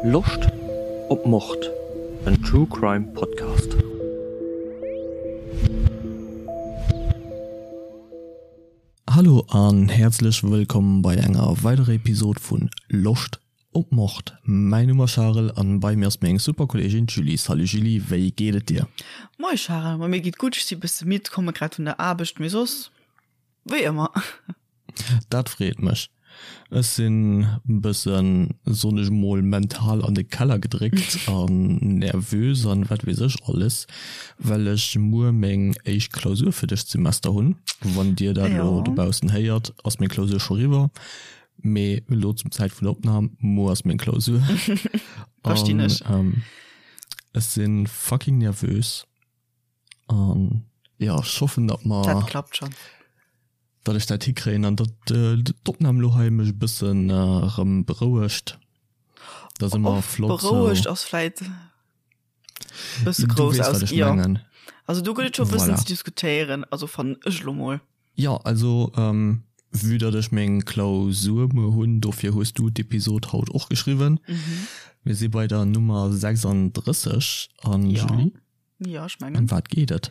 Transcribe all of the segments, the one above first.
Loscht op Mord? En True Crime Podcast. Hallo an häerzlech wëllkomm bei enger weiderer Episode vun Loscht op Mord. Mäin Numm ass Charel an bei mir ass meng super Kolleegin d'Julie. Salut Julie, wéi geet et dir? Moie Charel, ma mir geet gutt, ech si bësse midd, komme grad vun der Aarbecht, mee soss wéi ëmmer. Dat freet mech. Ech sinn bëssen, soen ech mol, mental an de Keller gedréckt an nervös an wat weess ech alles, well ech muer meng éischt Klausur fir dëst Semester hunn. Wann dir dat elo dobaussen héiert, ass meng Klausur scho riwwer, mee elo zum Zäit vun der Opnam, muer ass meng Klausur. Verstinn ech. An ech sinn fucking nervös. An jo, ech hoffen, datt mer. Dat klappt schon. Datt ech dat hikréien an datt d'Opnam elo hei mech e bëssen erëm berouegt. Dat ass ëmmer flott sou. Berouegt ass vläit e bësse grouss aus. Jo, also do gëtt et scho e bëssen ze diskutéieren, also fannen ech elo mol. Jo, also vue datt ech meng Klausur muer hunn, dofir hues du d'Episod haut och geschriwwen. Mir si bei der Nummer 36 an Julie. Jo, ech mengen. Ëm wat geet et?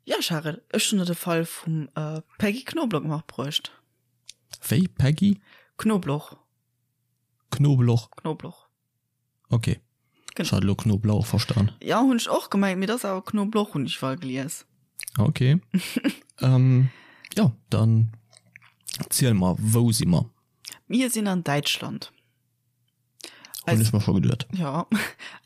Jo, Charel, ech hunn der de Fall vum Peggy Knobloch matbruecht. Wéi? Peggy? Knobloch. Knobloch? Knobloch. Ok. Ech hat elo Knoblauch verstan. Jo, hunn ech och gemengt, mee et ass awer Knobloch, hunn ech iwwerall gelies. Ok. Jo, dann ziel mer, wou si mer? Mir sinn an Däitschland. Hunn ech mer scho geduet. Jo,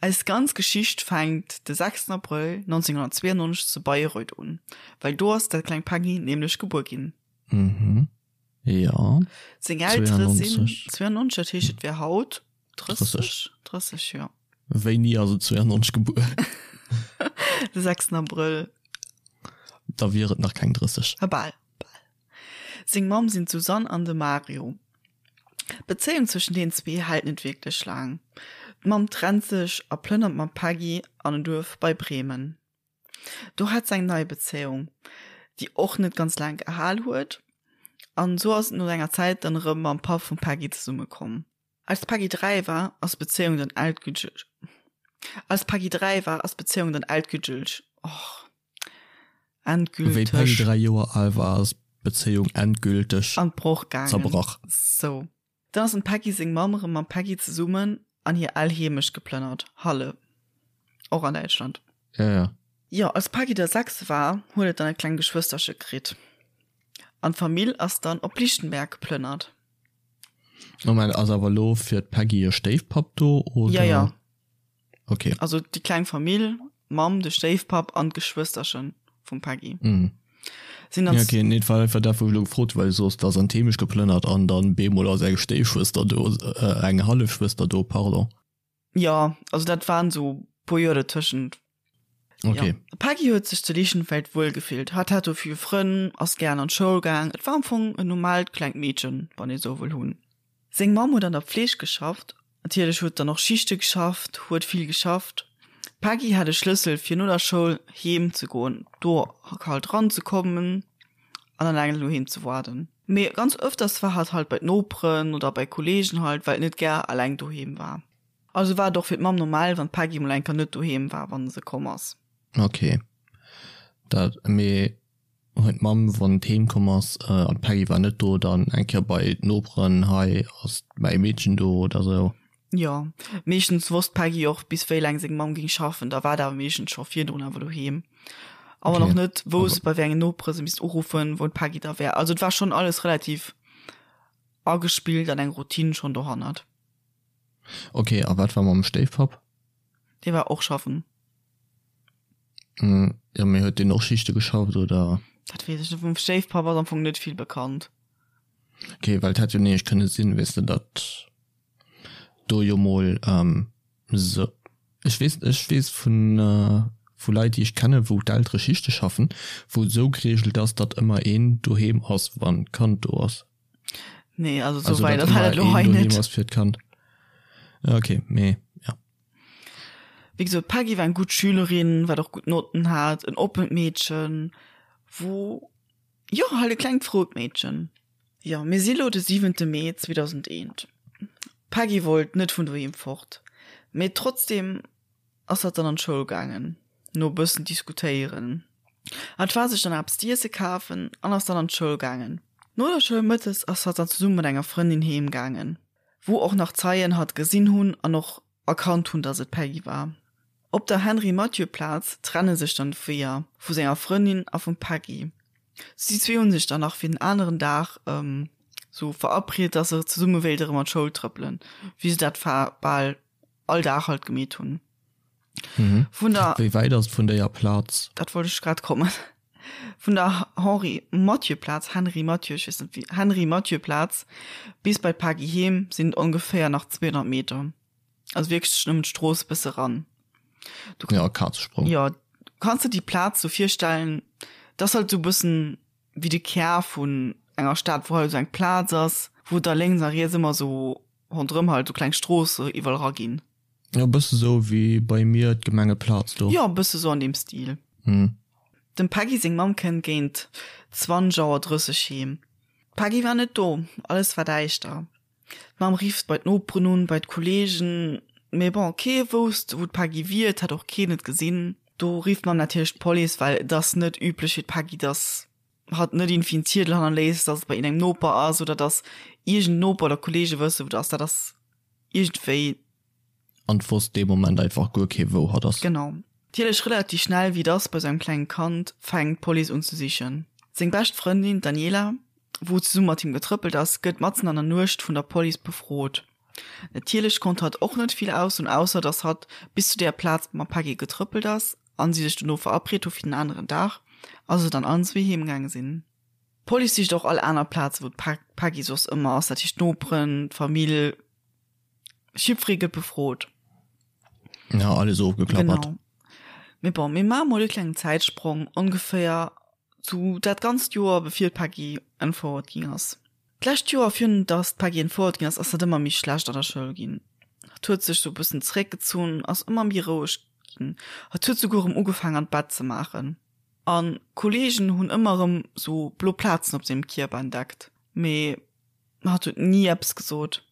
eis ganz Geschicht fänkt de 6 Abrëll 1992 zu Bayreuth un, well do ass dat kleng Peggy nämlech gebuer ginn. Mhm, jo. Seng Eltere sinn 92, dat heescht et wär haut 30, 30, jo. Wéini ass et 92 gebuer? De 6 Abrëll. Da wier et nach keng 30. Bal, bal. Seng Mamm sinn d'Susanne an de Mario. D'Bezéiung zwëschen deenen zwee hält net wierklech laang. D'Mamm trennt sech a plënnert mam Peggy an en Duerf bei Bremen. Do hat s'eng nei Bezéiung, déi och net ganz laang gehal huet, an esou ass et no enger Zäit dann erëm mam Papp vum Peggy zesummekomm. Als d'Peggy 3 war, ass d'Bezéiung dann endgülteg Als d'Peggy 3 war, ass d'Bezéiung dann endgülteg och endgülteg. Wéi d'Peggy 3 Joer al war, ass d'Bezéiung endgülteg an d'Broch gaangen. Zerbrach. Sou. Dann ass dem Peggy seng Mamm erëm mam Peggy zesummen an hir al Heemecht geplënnert, Halle, och an Däitschland. Ja, ja. Jo, als d'Peggy da 6 war, huet et dann e kleng Geschwësterche kritt an d'Famill ass dann op Lichtenberg geplënnert. Moment, ass awer elo fir d'Peggy e Stéifpapp do, oder? Ja, ja. Okay. Also déi kleng Famill, d'Mamm, de Stéifpapp an d'Geschwësterche vum Peggy. Mhm. Sinn dann. Ja, okay, nee, et war einfach dat, wou ech elo gefrot hu, well du soos, et ass an d'Heemecht geplënnert an dann bemol ass eng Stéifschwëster do, eng Hallefschwëster do, pardon. Jo, also dat waren esou puer Joer dertëschent. Okay. Ja. D'Peggy huet sech zu Lichtenfeld wuel gefillt. Hatt hat do vill Frënn, ass gären an d'Schoul gaang. Et war am Fong en normaalt klengt Meedchen, wann ee sou wëll hunn. Seng Mamm huet an der Pfleeg geschafft. Natierlech huet dann och Schichte geschafft, huet vill geschafft. D'Peggy hat e Schlëssel fir no der Schoul heem ze goen, do halt ranzekommen an alleng doheem ze waarden. Mee ganz ëfters war hatt halt bei d'Noperen oder bei Kollegen halt, well et net gär alleng doheem war. Also war et och fir d'Mamm normal, wann d'Peggy mol eng Kéier net doheem war, wann se komm ass. Ok, dat, mee huet d'Mamm, wann d'heem komm ass an d'Peggy war net do, dann eng Kéier bei d'Noperen, hei ass mäi Meedchen do oder sou? Jo, meeschtens wosst d'Peggy och bis wéi laang seng Mamm géing schaffen, da war et awer meeschtens scho virdrun awer doheem. A wann och net, wousst bei wéi engen Nopere se misst uruffen, wou d'Peggy da wär. Also et war schonn alles relativ agespillt an eng Routine schonn dohannert. Ok, a wat war mam Stéifpapp? Dee war och schaffen. Jo, mee huet deen och Schichte geschafft, oder? Dat weess ech net. Vum Stéifpapp ass am Fong net vill bekannt. Ok, well et hätt jo nämlech kënne sinn, weess de, datt do jo mol sou, ech weess, ech weess vun, vu Leit, déi ech kennen, wou d'Eltere Schichte schaffen, wou et sou geregelt ass, datt ëmmer een doheem ass, wann d'Kand do ass. Nee, also so weit war dat lo hei net. Ass fir d'Kand. Okay, mee ja. Wéi gesot, d'Peggy war eng gutt Schülerin, wat och gutt Notten hat, en oppent Meedchen, wou, jo, halt e klengt frout Meedchen. Jo, mir si lo de siwente Mee 2001. D'Peggy wollt net vun doheem fort. Mee trotzdem ass hatt dann an d'Schoul gaangen, no e bëssen diskutéieren. Hatt war sech dann eppes z'iesse kafen an ass dann an d'Schoul gaangen. No der Schoul mëttes ass hatt dann zesumme mat enger Frëndin heem gaangen, wou och nach Zeien hatt gesinn hunn an och erkannt hunn, dass et d'Peggy war. Op der Henri-Mathieu-Plaz trenne sech dann d'Weeër vu senger Frëndin a vum Peggy. Si zwee hu sech dann nach fir den aneren Dag sou verabriet, dass se zesumme wéilte rëm an d'Schoul trëppelen, wéi se dat bal all Dag halt gemeet hunn. Mhm. Vun der Wéi wäit ass et vun déier Plaz? Dat wollt ech grad kommen. Vun der Henri Mathieu Plaz, Henri Mathieu, ech weess net wéi, Henri Mathieu Plaz bis bei d'Paggy heem sinn et ongeféier nach 200 Meter. Also wierklech nëmmen d'Strooss e bësse ran. Du, ja, Kazesprong. Ja, du kanns dir déi Plaz sou virstellen, dat ass halt sou e bëssen wéi de Kär vun enger Stad, wou halt sou eng Plaz ass, wou da lénks a riets ëmmer sou ronderëm halt sou kleng Stroosse iwwerall eraginn. Jo, bësse sou wéi bei mir d'Gemengeplaz do. Jo, bësse sou an deem Stil. Dem Peggy seng Mamm kënnt géint 20 Auer 30 heem. D'Peggy war net do, alles war däischter. D'Mamm rifft bei d'Noperen un, bei d'Kolleegen, mee bon, kee wousst, wou d'Peggy wier, et hätt och keen et gesinn. Do rifft d'Mamm natierlech d'Police, well et ass net üblech fir d'Peggy, dass hatt net iergendwéi en Ziedel hannerléisst, dass et bei iergendengem Noper ass oder dass iergend Noper oder Kolleege wësse wou et ass. Dat ass iergendwéi. An et wosst dee Moment einfach guer kee wou hatt ass. Genau. Natierlech relativ schnell, wéi et ass bei sou engem klengen Kand, fänkt d'Police un ze sichen. Seng bescht Frëndin, d'Daniela, wou zesumme mat him getrëppelt ass, gëtt matzen an der Nuecht vun der Police befrot. Natierlech konnt hatt och net vill aussoen, ausser dass hatt bis zu där Plaz mam Peggy getrëppelt ass an si sech dono verabreet hu fir den aneren Dag a se dann allen zwee heem gaange sinn. D'Police sicht och all aner Plaze wou d'Peggy soss ëmmer ass, dat heescht d'Noperen, d'Famill, jiddweree gëtt befrot. Ja, alles ofgeklappert. Genau. Mee bon, mir maache mol e klengen Zäitsprong, ongeféier zu dat ganzt Joer bevir d'Peggy entfouert ginn ass. D'lescht Joer, virun datt d'Peggy entfouert ginn ass, ass dat ëmmer méi schlecht an der Schoul ginn. Hatt huet sech sou e bëssen zeréckgezunn, ass ëmmer méi roueg ginn. Hatt huet souguer erëm ugefaangen an d'Bett ze maachen. An d'Kollegen hunn ëmmer erëm sou blo Plazen op sengem Kierper entdeckt, mee hatt huet ni eppes gesot.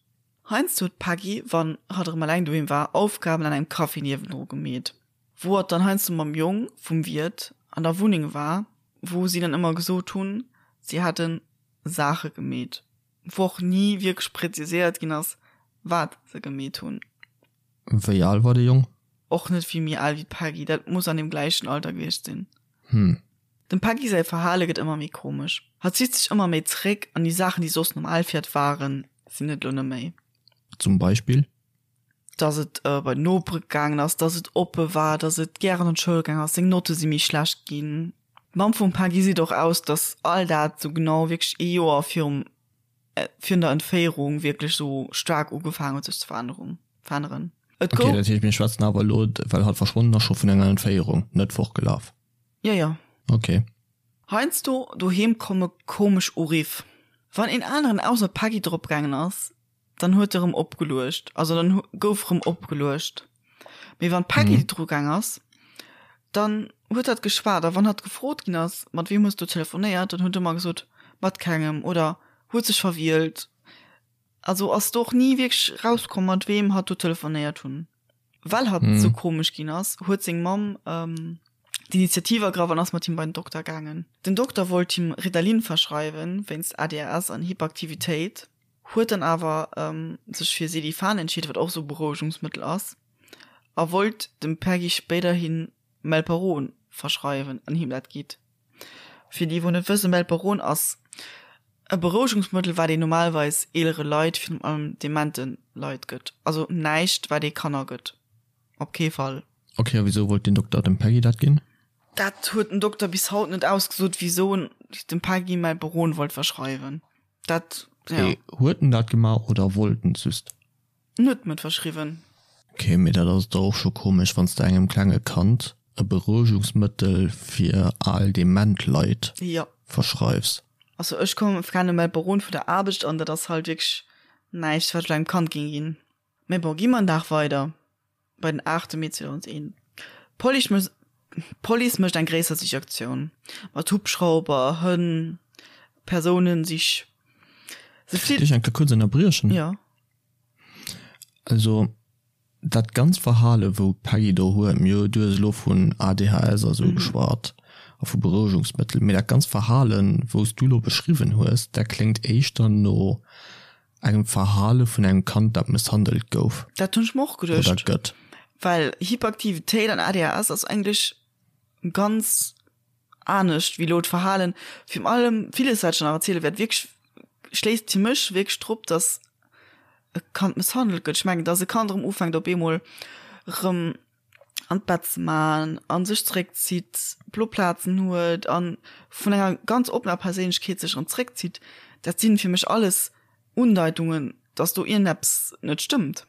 Heiansdo huet d'Peggy, wann hatt erëm eleng doheem war, Aufgaben an engem Café niewendru gemeet, wou hatt dann heiansdo mam Jong vum Wiert an der Wunneng war, wou si dann ëmmer gesot hunn, si hätte Saache gemeet, wou och ni wierklech präziséiert ginn ass, wat se gemeet hunn. Wéi al war de Jong? Och net vill méi al wéi d'Peggy, dat muss an deem gläichen Alter gewiescht sinn. Hm. Dem Peggy säi Verhale gëtt ëmmer méi komesch. Hatt zitt sech ëmmer méi zeréck an déi Saachen, déi soss normal fir hatt waren, sinn et elo net méi. Zum Beispill? Dass et bei den Nopere gaangen ass, dass et oppe war, dass et gären an d'Schoul gaangen ass, seng Notte si méi schlecht ginn. D'Mamm vum Peggy seet och aus, dass all dat sou genau wierklech ee Joer virum virun der Entféierung wierklech sou staark ugefaangen huet sech ze veränneren. veränneren. Et gouf. Okay, dat heescht mir schwätzen awer elo, well hatt verschwonnen ass, scho vun enger Entféierung, net fortgelaf? Jo, jo. Okay. Heiansdo doheem komme komesch Uriff. Wann een aneren ausser d'Peggy drop gaangen ass, dann huet e rëm opgeluecht, also dann gouf rëm opgeluecht. Mee wann d'Peggy dru gaang ass, dann huet hatt geschwat a wann hatt gefrot ginn ass, mat weem hues du telefonéiert, dann huet ëmmer gesot, mat kengem oder huet sech verwielt. Also ass do och ni wierklech rauskomm, mat weem hatt do telefonéiert hunn. Well hatt sou komesch ginn ass, huet seng Mamm d'Initiativ ergraff an ass mat him bei den Dokter gaangen. Den Dokter wollt him Ritalin verschreiwen, wéinst ADHS an Hyperaktivitéit, huet dann awer sech fir Sedifan entscheet, wat och sou e Berouegungsmëttel ass, a wollt dem Peggy spéiderhi Melperon verschreiwen an him dat gitt. Fir déi wou net wëssen, Melperon ass e Berouegungsmëttel wat een normalweis eelere Leit, virun allem demente Leit gëtt. Also näischt wat ee Kanner gëtt, op kee Fall. Ok, a wisou wollt den Dokter dem Peggy dat ginn? Dat huet den Dokter bis haut net ausgesot, wisou en dem Peggy Melperon wollt verschreiwen. Dat, ja. Mee huet en dat gemaach oder wollt en just? En huet em et verschriwwen. Ok, mee dat ass dach och scho komesch, wann s de engem klenge Kand e Berouegungsmëttel fir al dement Leit Jo. verschreifs. Also ech kommen kenne Melperon vun der Aarbecht an dat ass halt wierklech näischt wat ech engem Kand géing ginn. Mee bon, gi mer en Dag weider bei den 8 Mee 2001. D'Police d'Police mécht eng gréisser Sichaktioun mat Hubschrauber, Hënn, Persounensich. Se flitt. Dierf ech eng Kéier kuerz ënnerbriechen? Jo. Also. Dat ganz Verhale wou d'Peggy do huet, mir du hues elo vun ADHS a sou geschwat a vu Berouegungsmëttel, mee dat ganz Verhalen wou s du elo beschriwwen hues, dat kléngt éischter no engem Verhale vun engem Kand dat mësshandelt gouf. Dat hunn ech mer och geduecht. Oder gëtt. Well Hyperaktivitéit an ADHS ass eigentlech ganz anescht wéi elo d'Verhalen. Virun allem villes wat ech nach erziele wäert, wierklech schléisst fir mech wierklech drop, datt e Kand mësshandelt gëtt. Ech mengen, datt e Kand erëm ufänkt op eemol erëm an d'Bett ze man a sech zeréckzitt, blo Plazen huet a vun enger ganz oppener Perséinlechkeet sech erëm zeréckzitt, dat sinn fir mech alles Undeitungen, datt do iergendeppes net stëmmt.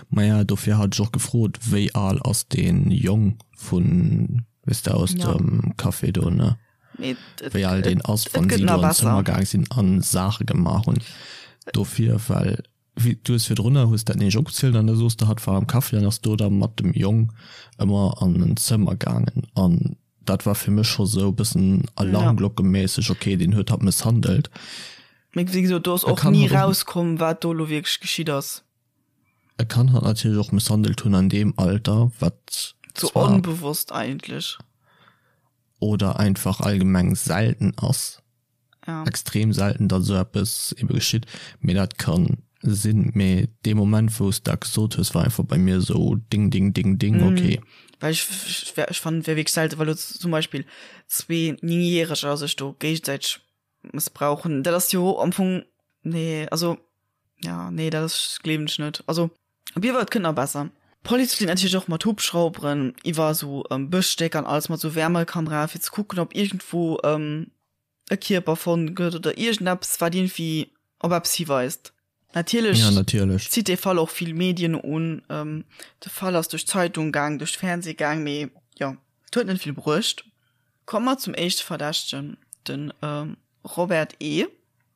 Maja, dofir hat ech och gefrot, wéi al ass dee Jong vun, weess de, aus dem Café do, ne? Wéi al deen ass, wann si do an d'Zëmmer gaang sinn a Saache gemaach hunn. Dofir, well wéi du hues virdrunner hues dat nämlech opgezielt an da soos de, hatt war am Café an ass do da mat dem Jong ëmmer an en Zëmmer gaangen an dat war fir mech scho sou e bëssen alarmglockeméisseg, okay, deen huet hatt mësshandelt. Mee wéi gesot, do ass och ni rauskomm, wat do elo wierklech geschitt ass. E kann hatt natierlech och mësshandelt hunn an deem Alter, wat Sou onbewosst eigentlech. Oder einfach allgemeng selten ass. Ja. Extrem selten, datt esou eppes ebe geschitt. Mee dat ka sinn. Mee dee Moment, wou s de dat gesot hues, war einfach bei mir esou ding, ding, ding, ding, okay. Well ech, ech fannen, et wär wierklech selten, well elo zum Beispill zwee Néngjäreger sech do géigesäiteg mëssbrauchen, dat ass jo am Fong, nee, also, ja, nee, dat ass, gleewen ech net. Also, op jidde Fall, et kënnt nach besser. D'Police flitt natierlech och mat Hubschrauberen iwwer esou Bëschstécker an alles mat esou Wärmekamerae fir ze kucken, ob iergendwou e Kierper fonnt gëtt oder iergendeppes, wat iergendwéi op eppes hiweist. Natierlech Ja, natierlech. zitt dee Fall och vill Medien un. De Fall ass duerch d'Zeitung gaang, duerch d'Fernseh gaang, mee jo, et huet net vill bruecht. Komme mer zum éischte Verdächtegen, de Robert E.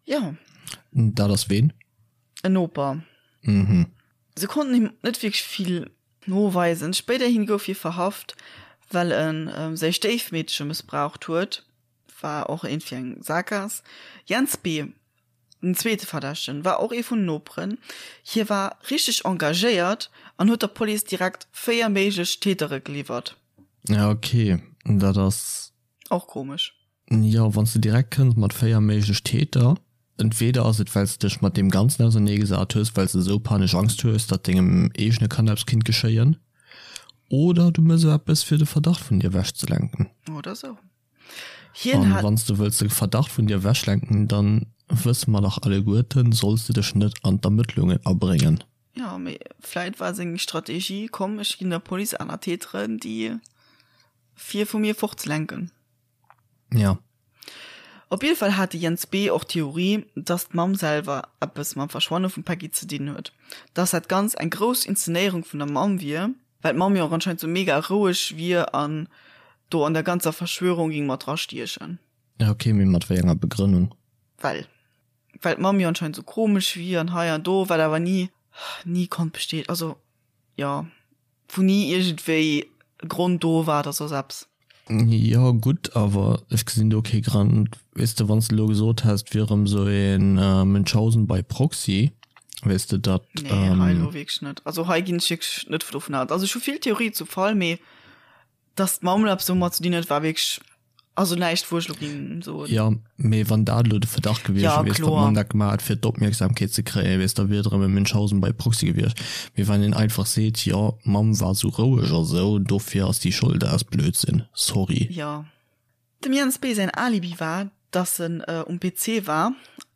Jo. Dat ass ween? En Noper. Mhm. Se konnten him net wierklech vill noweisen. Spéiderhin gouf hie verhaft, well e säi Stéifmeedche mëssbraucht huet. War och iergendwéi eng Saakgaass. Jens B. Den zweete Verdächtegen war och ee vun den Noperen. Hie war richteg engagéiert an huet der Police direkt 4 méiglech Tätere geliwwert. Ja ok, dat ass. Och komesch. Jo, wann s de direkt kënns mat 4 méiglech Täter, entweder ass et well s de dech mat deem Ganzen auserneegesat hues, well s de esou panesch Angst hues, datt dengem eegene Kand eppes kinnt geschéien, oder du mëss eppes fir de Verdacht vun dir ewechzelenken. Oder sou. Hien An hat. wann s de wëlls de Verdacht vun dir ewechlenken, dann wësse mer dach alleguerten, solls de dech net an d'Ermëttlungen abréngen. Jo, mee vläit war seng Strategie, komm ech ginn der Police aner Täteren, déi fir vu mir fortzelenken. Ja. Op jidde Fall hat de Jens B. och d'Theorie, dass d'Mamm selwer eppes mam Verschwanne vum Peggy ze dinn huet, dass dat Ganzt eng grouss Inszenéierung vun der Mamm wier, well d'Mamm jo och anscheinend sou mega roueg wier an do an der ganzer Verschwörung ging mat dra stiechen. Ja ok, mee mat wéi enger Begrënnung? Well well d'Mamm jo anscheinend sou komesch wier an hei an do, wat awer ni ni konnt bestätegt, also jo, wou ni iergendwéi e Grond do war oder soss eppes. Jo gutt, awer ech gesinn do kee Grond. Weess de, wann s de elo gesot häss, et wier erëm esou ee Münchhausen by proxy, weess de, datt. Nee, hei elo wierklech net. Also hei ginn ech wierklech net dovun aus. Also ech hu vill Theorie zum Fall, mee datt d'Mamm elo eppes domat ze dinn huet, war wierklech Also näischt wou ech lo ging soen. Jo, mee wann dat elo de Verdacht gewiescht Ja, wier, weess, datt kloer. d'Mamm dat gemaach huet fir d'Opmierksamkeet ze kréien, weess, da wier et erëm e Münchhausen by proxy gewiescht. Mee wann een einfach seet, jo, d'Mamm war sou roueg a sou, dofir ass déi Schold, dat ass Blödsinn. Sorry. Jo. Dem Jens B. säin Alibi war, dass en um PC war,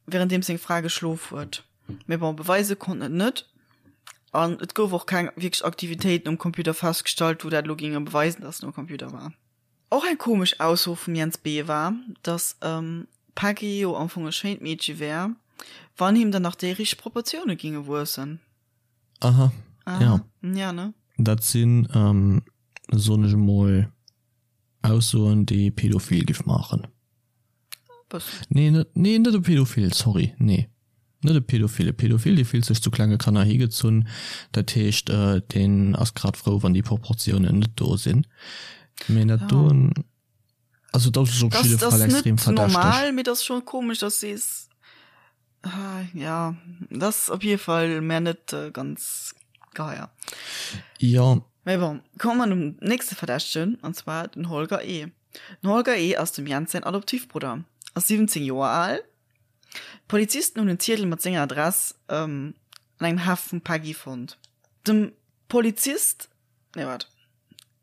wärenddeems seng Fra geschlof huet. Mee bon, beweise konnt en et net. An et gouf och keng wierklech Aktivitéiten um Computer festgestallt, wou dat elo géinge beweisen, dass en um Computer war. Och eng komesch Ausso vum Jens B. war, dass d'Peggy jo am Fong e schéint Meedche wär, wann him dann nach déi richteg Proportioune ginge wuessen. Aha, ja. Ja, ne? Dat sinn, soen ech emol, Aussoen, déi e Pädophil giff maachen. Bëssen. Nee, net, nee, net e Pädophil, sorry, nee. Net e Pädophil. E Pädophil, dee fillt sech zu klenge Kanner higezunn. Dat heescht, deen ass grad frou, wann déi Proportiounen net do sinn. Mee dat doen, also dat ass op jidde Fall extrem verdächteg. Dat ass net normal, mee dat ass scho komesch, dass s sees, ja, dat ass op jidde Fall mär net ganz. Geheier. Jo. Mee bon, komme mer zum nächste Verdächtegen, an zwar den Holger E. Den Holger E. ass dem Jens säin Adoptivbrudder, ass 17 Joer al. D'Polizisten hunn en Ziedel mat senger Adress an engem Heft vum Peggy fonnt. Dem Polizist, nee waart,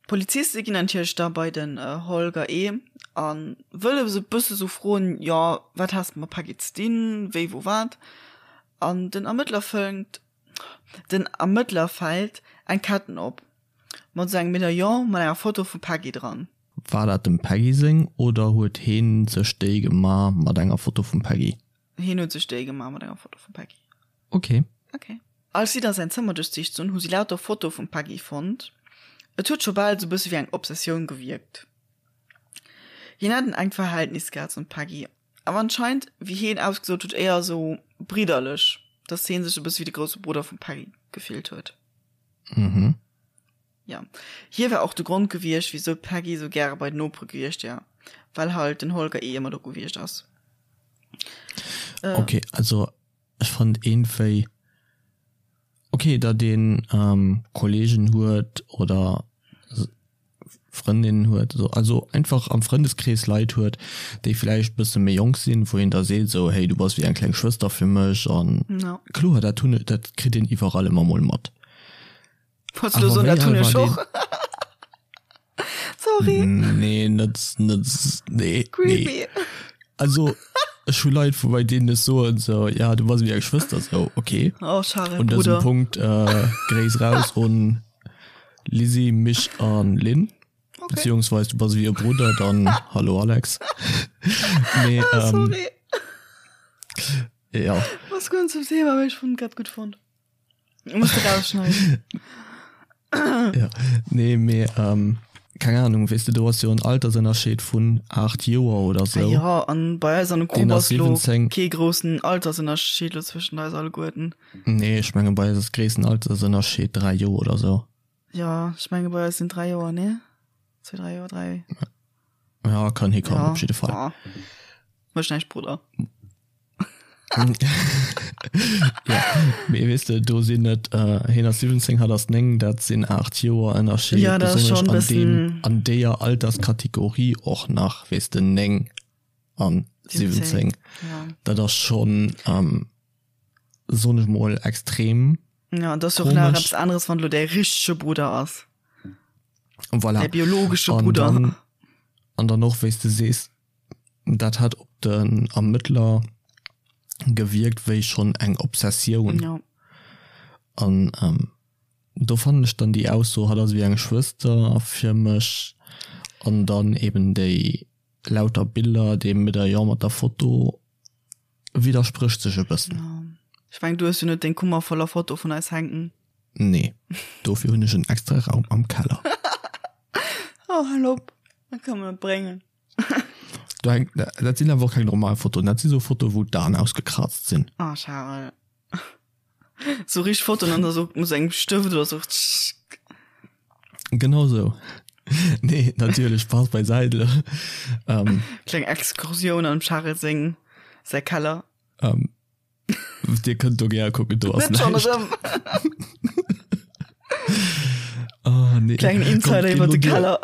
d'Poliziste ginn natierlech da bei den Holger E. a wëlle se e bësse sou froen, jo wat has de mat Peggy ze dinn, wéi wou wat. An den Ermëttler fënnt, den Ermëttler fält eng Ketten op mat sou engem Medaillon mat enger Foto vum Peggy dran. War dat dem Peggy seng oder huet heen sech déi gema mat enger Foto vum Peggy? Heen huet sech déi gema mat enger Foto vum Peggy. Ok. Ok. Als si da säin Zëmmer duerchsicht hunn, hu si lauter Fotoe vum Peggy fonnt. Et huet scho bal sou bësse wéi eng Obsessioun gewierkt. Hien hat en enkt Verhältnis gehat zum Peggy, awer anscheinend, wéi heen ausgesot huet, éier sou bridderlech, dass heen sech e bësse wéi de grousse Brudder vum Peggy gefillt huet. Mhm. Ja. Hie war och de Grond gewiescht, wisou d'Peggy sou gäre bei den Nopere gewiescht wär, well halt den Holger eh ëmmer do gewiescht ass. Äh. Ok, also ech fand iergendwéi ok, datt een Kollegen huet oder Frëndinnen huet, also einfach am Frëndeskrees Leit huet, déi vläicht bësse méi jonk sinn, wou een da seet esou, hey du bass wéi eng kleng Schwëster fir mech an kloer dat hunn, dat kritt een iwwerall ëmmer mol mat. Wolltest du soen, dat hunn ech och? Sorry. Nee, net, net, nee. Creepy. Nee. Also, ech hu Leit, wou bei deenen ech soen, so, ja, du bass wéi eng Schwëster, so, okay. Oh, Charel, Un dësem Bruder. Punkt, äh, Gréiss raus un Lizzy, mich an Lynn. Okay. Beziehungsweise du bass wéi e Brudder, dann hallo Alex. Nee, Ah, ähm, sorry. ja. Was gehört zum Thema, aber ich fand grad gut fand. Muss du rausschneiden. ja. Nee, mee, ähm, keng Ahnung, weess de, do ass jo en Altersënnerscheed vun 8 Joer oder sou. Ah ja, an bei eis an der Deen Grupp ass ass lo 17. kee groussen Altersënnerscheed lo zwëschen eis alleguerten. Nee, ech menge bei eis ass gréissten Altersënnerscheed 3 Joer oder sou. Ja, ech menge bei eis sinn 3 Joer, nee? 2, 3 Joer, 3. Ja, kann hikommen, Ja, op jidde Fall. ja. Mécht näischt, Brudder. Ja, mee weess de, do sinn et, hien ass 17, hatt ass 9, dat sinn 8 Joer Ënnerscheed, Ja, dat ass besonnesch schonn an deem, bëssen. an deeër Alterskategorie och nach, weess de, 9 an 17, 17, ja. dat ass schonn, soen ech mol, extrem Ja, an dat ass jo och nach komesch. eppes aneres, wann elo däi richtege Brudder ass. Voilà. Däi biologesche An Brudder. dann, an dann och, wéi s de sees, Dat hat op den Ermëttler gewierkt wéi schonn eng Obsessioun. Ja. An do fannen ech dann déi Ausso, hatt ass ewéi eng Schwëster fir mech, an dann eben déi lauter Biller, dee Medaillon mat der Foto, widdersprécht sech e bëssen. Ja. Ech mengen, du hues jo net deng Kummer voller Foto vun eis hänken. Nee, dofir hunn ech en extra Raum am Keller. Oh, hal op, dat kann man net bréngen. Do hänkt, dat sinn awer och keng normal Fotoen, dat si sou Fotoen, wou d'Aen ausgekrazt sinn. Ah, Charel. Sou richteg Fotoen an da sou mat engem Stëft oder sou. Genau sou. Nee, natierlech, Spaß beiseite. Ähm. Kleng Exkursioun an dem Charel seng, säi Keller. Ähm. Dir kënnt do gär kucken, do ass Net schon näischt. erëm. Ah, nee. Klengen Komm, Insider geh iwwer lo de duer. Keller.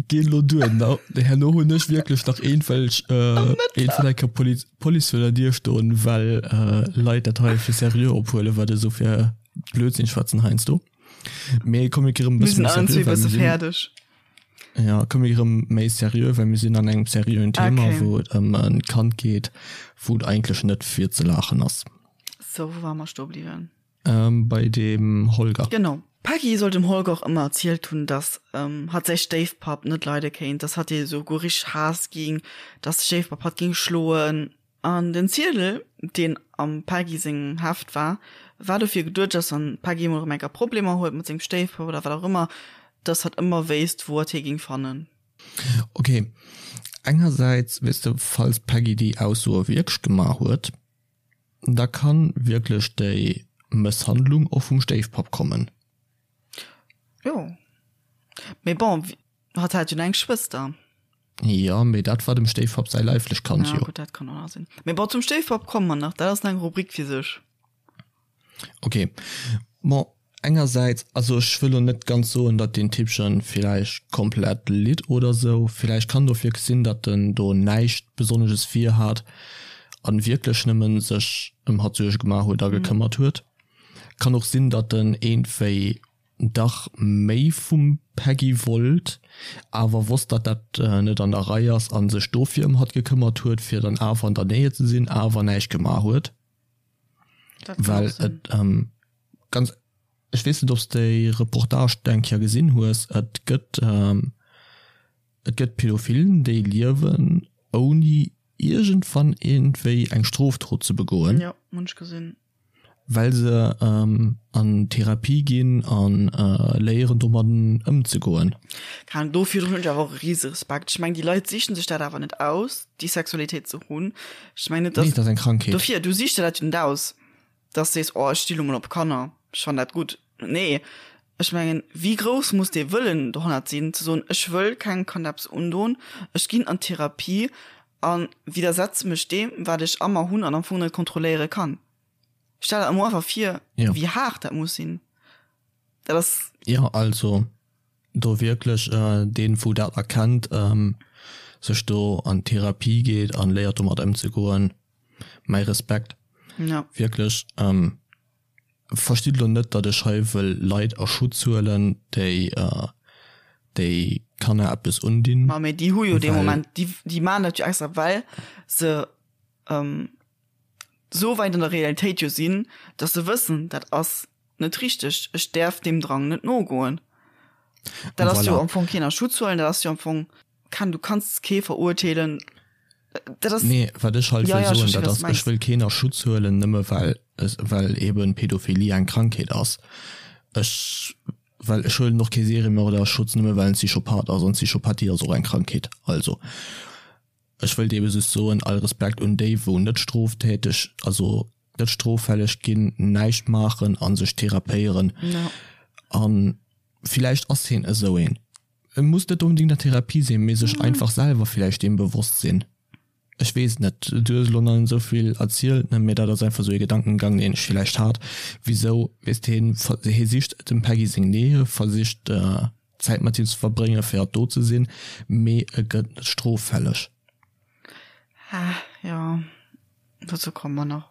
Geh lo duer. Na, herno hunn ech wierklech nach eenwelch, äh, eenwell enker Police, Police vir der Dier stoen, well äh, Leit dat hei fir seriö ophuelen, wat ech sou fir Blödsinn schwätzen heiansdo. Mee komm, mir gi rëm e Mir bësse sinn méi allen seriö, zwee well bësse mir sinn fäerdeg. Ja, komm mir rëm méi seriö, well mir sinn an engem seriöen Thema, Okay. wou et ëm en Kand geet, wou et eigentlech net fir ze laachen ass. So, wou ware mer stoe bliwwen? Ähm, bei dem Holger. Genau. D'Peggy soll dem Holger och ëmmer erzielt hunn, dass hatt säi Stéifpapp net leide kéint, dass hatt hie souguer richteg Haass ging, dass de Stéifpapp hatt ging schloen. An den Ziedel, deen am Peggy sengem Heft war, war dofir geduecht, dass wann d'Peggy emol erëm eng Kéier Problemer huet mat sengem Stéifpapp oder wat och ëmmer, dass hatt ëmmer wéisst, wou hatt hie géing fannen. Ok, engersäits, weess de, falls d'Peggy déi Aussoe wierklech gemaach huet, da kann wierklech déi Mësshandlung och vum Stéifpapp kommen. Jo, mee bon, Hatt hat jo nach eng Schwëster. Jo, mee dat war dem Stéifpapp säi leiflech Kand jo. Ja, gutt, dat kann och nach sinn. Mee bon, zum Stéifpapp komme mer nach, dat ass nach eng Rubrik fir sech. Ok, bon, Engersäits, also ech wëll lo net ganz soen, datt deen Typchen villäicht komplett litt oder sou, villäicht kann et och wierklech sinn, datt en do näischt Besonnesches vir hat an wierklech nëmmen sech ëm hatt Suerge gemaach huet a gekëmmert huet. Kann och sinn, datt en iergendwéi dach méi vum Peggy wollt, awer wosst, datt dat net an der Rei ass an sech dofir ëm hatt gekëmmert huet, fir dann awer an der Nähe ze sinn, awer näischt gemaach huet. Well et ganz, ech weess net, ob s de déi Reportage eng Kéier gesinn hues, et gëtt, et gëtt Pädophilen, déi liewen ouni iergendwann iergendwéi eng Strofdrot ze begoen. Jo, hunn ech gesinn. Well se an Therapie ginn a léieren domadden ëmzegoen. Keine Ahnung, dofir hunn ech awer och e rise Respekt. Ech mengen, déi Leit sichen sech dat awer net aus, déi Sexualitéit ze hunn. Ech mengen net, dass. Nee, dat ass eng Krankheet. Dofir, du sichs der dat jo net aus, dass de sees, oh, ech sti lo mol op Kanner, ech fannen dat gutt. Nee, ech mengen, wéi grouss muss dee Wëllen dohannert sinn, ze soen, ech wëll kengem Kand eppes undon, ech ginn an Therapie a widdersetze mech deem, wat ech a mer hunn an am Fong net kontrolléiere kann. Stell der emol einfach vir, Ja. wéi haart dat muss sinn. Dat ass. Jo, also do wierklech deen, wou dat erkennt, sech do an d'Therapie geet an léiert domat ëmzegoen, mäi Respekt. Ja. Wierklech. Verstitt elo net, datt ech hei wëll Leit a Schutz huelen, déi déi Kanner eppes undinn. Ma mee déi hu jo dee Moment, déi déi maachen dat jo extra, well se esou wäit an der Realitéit jo sinn, datt se wëssen, dat ass net richteg, ech däerf deem Drang net nogoen. Dat ass jo am Fong keen a Schutz huelen, dat ass jo am Fong. Kann, du kanns kee verurteelen. Dat ass. Nee, wat ech halt wëll soen, dat ass, ech wëll keen a Schutz huelen, nëmme well, well eben Pädophilie eng Krankheet ass. Ech, well ech huelen och kee Seriemörder a Schutz, nëmme well en Psychopath ass, an Psychopathie ass och eng Krankheet. Also, ech wëllt ebe just soen, all Respekt un déi, wou net stroftäteg, also net stroffälleg ginn, näischt maachen a sech therapéieren. A villäicht ass hien esou een. E muss net onbedingt an Therapie sinn, mee sech einfach selwer villäicht deem bewosst sinn. Ech weess et net, du hues elo nach net esou vill erzielt, ne, mee dat ass einfach esou ee Gedankengang, deen ech villäicht hat. Wisou, weess de, hien, hie sicht dem Peggy seng Nähe, versicht Zäit mat him ze verbréngen, fir hatt do ze sinn, mee e gëtt net stroffälleg. Ah, jo, dozou komme mer nach.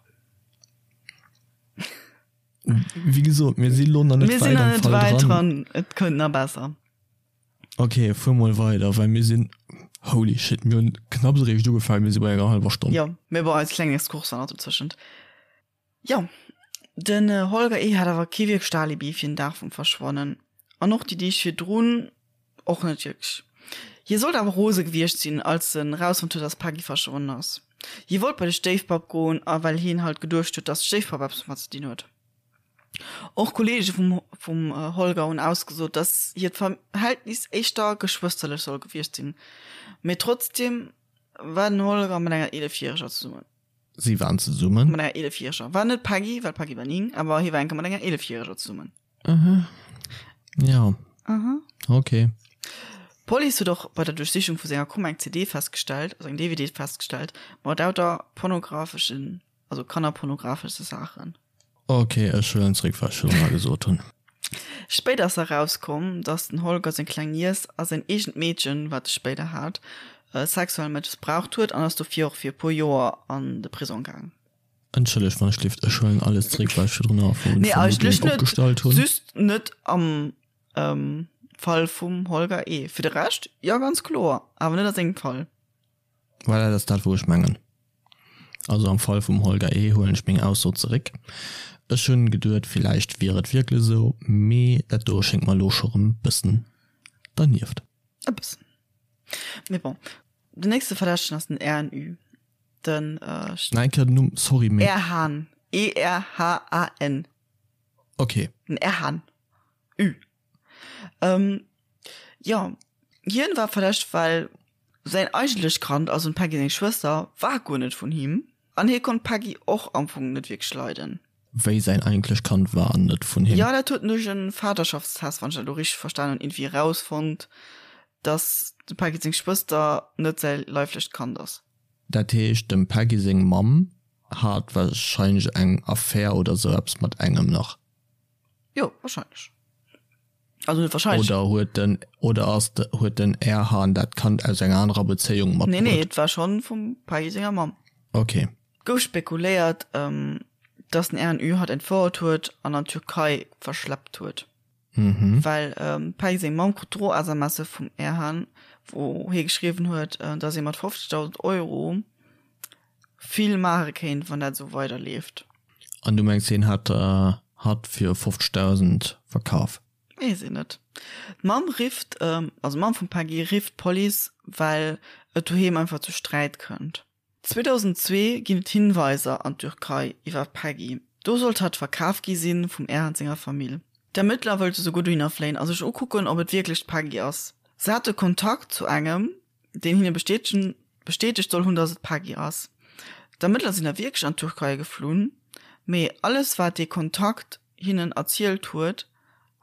Wéi gesot, mir si lo nach net Mir sinn wäit nach am net Fall wäit dran. dran. Et kënnt nach besser. Okay, fuer mol weider, well mir sinn, holy shit, mir hunn knapps eréischt ugefaangen, mir si bei enger hallwer Stonn. Jo, mee bon, eis kleng Exkurs war nach dozwëschent. Jo, den Holger E. hat awer kee wierklecht Alibi fir den Dag vum Verschwannen. An och déi Deeg virdrun och net wierklech. Hie sollt awer rose gewiescht sinn, als en rausfonnt huet, dass d'Peggy verschwonnen ass. Hie wollt bei de Stéifpapp goen, a well hien halt geduecht huet, dass de Stéifpapp eppes domat ze dinn huet. Och Kolleege vum vum Holger hunn ausgesot, dass hiert Verhältnis éischter geschwësterlech soll gewiescht sinn. Mee trotzdeem war den Holger mat enger 11 Järeger zesummen. Si waren zesummen? Mat enger 11 Järeger. War net d'Peggy, well d'Peggy war 9, awer hie war eng Kéier mat enger 11 Järeger zesummen. Aha. Ja. Aha. Okay. D'Police huet och bei der Duerchsichung vu senger Kummer eng CD festgestellt, also eng DVD festgestellt, mat lauter pornografeschen, also kannerpornografesche Saachen. Okay, ech huelen zréck, wat ech virdrun gesot hunn. Spéider ass erauskomm, datt den Holger seng kleng Niess a säin eegent Meedchen, wat e spéider hat, sexuell mëssbraucht huet an ass dofir och fir e puer Joer an de Prisong gaang. Entschëllegt wann ech lift, ech huelen alles zréck wat ech virdrun a vu Nee, eigentlech Vermutung net. opgestallt hunn. Just net am ähm, Fall vum Holger E. Fir de Rescht, jo ganz kloer, awer net a sengem Fall. Voilà, dat ass dat wou ech mengen. Also am Fall vum Holger E. huelen ech meng Ausso zeréck. Ech hunn geduet villäicht wier et wierklech esou, mee dat do schéngt mer elo scho rëm bëssen dernieft. E bëssen. Mee bon, den nächste Verdächtegen ass den RNU. Den äh, Nach eng Kéier den Numm, sorry, mee. Erhan. E-R-H-A-N. Okay. Den Erhan. Ü. Ähm, jo, hien war verdächtegt, well säin eigentlecht Kand, also dem Peggy seng Schwëster, war guer net vun him. An hie konnt d'Peggy och am Fong net wierklech leiden. Wéi säin eigentlecht Kand war net vun him? Jo, dat huet en duerch e Vaterschaftstest, wann ech dat elo richteg verstan hunn, iergendwéi erausfonnt, dass dem Peggy seng Schwëster net säi leiflecht Kand ass. Dat heescht, dem Peggy seng Mamm hat warscheinlech eng Affär oder sou eppes mat engem nach. Jo, wahrscheinlech. Also net wahrscheinlech. Oder huet den, oder ass de, huet den Erhan dat Kand aus enger anerer Bezéiung matbruet? Nee, nee, et war schonn vum Peggy senger Mamm. Okay. Gouf spekuléiert, dass den Erhan Ü hatt entfouert huet an an d'Türkei verschleppt huet. Mhm. Well d'Peggy seng Mamm krut Dro-SMSe vum Erhan, wou hie geschriwwen huet, dass ee mat 50.000 Euro vill maache kéint, wann dat esou weiderleeft. An du mengs hien hat hatt fir 50.000 verkaf? Weess een net. D'Mamm rifft, also d'Mamm vum Peggy rifft d'Police, well et doheem einfach zu Sträit kënnt. 2002 ginn et Hinweiser an d'Türkei iwwer d'Peggy. Do sollt hatt verkaf gi si vum Erhan senger Famill. D'Ermëttler wëllte souguer dohinner fléien a sech ukucken, ob et wierklech d'Peggy ass. Se hate Kontakt zu engem, deen hinne bestätegen bestätegt soll hunn, datt et d'Peggy ass. D'Ermëttler sinn da wierklech an d'Türkei geflunn, mee alles wat dee Kontakt hinnen erzielt huet,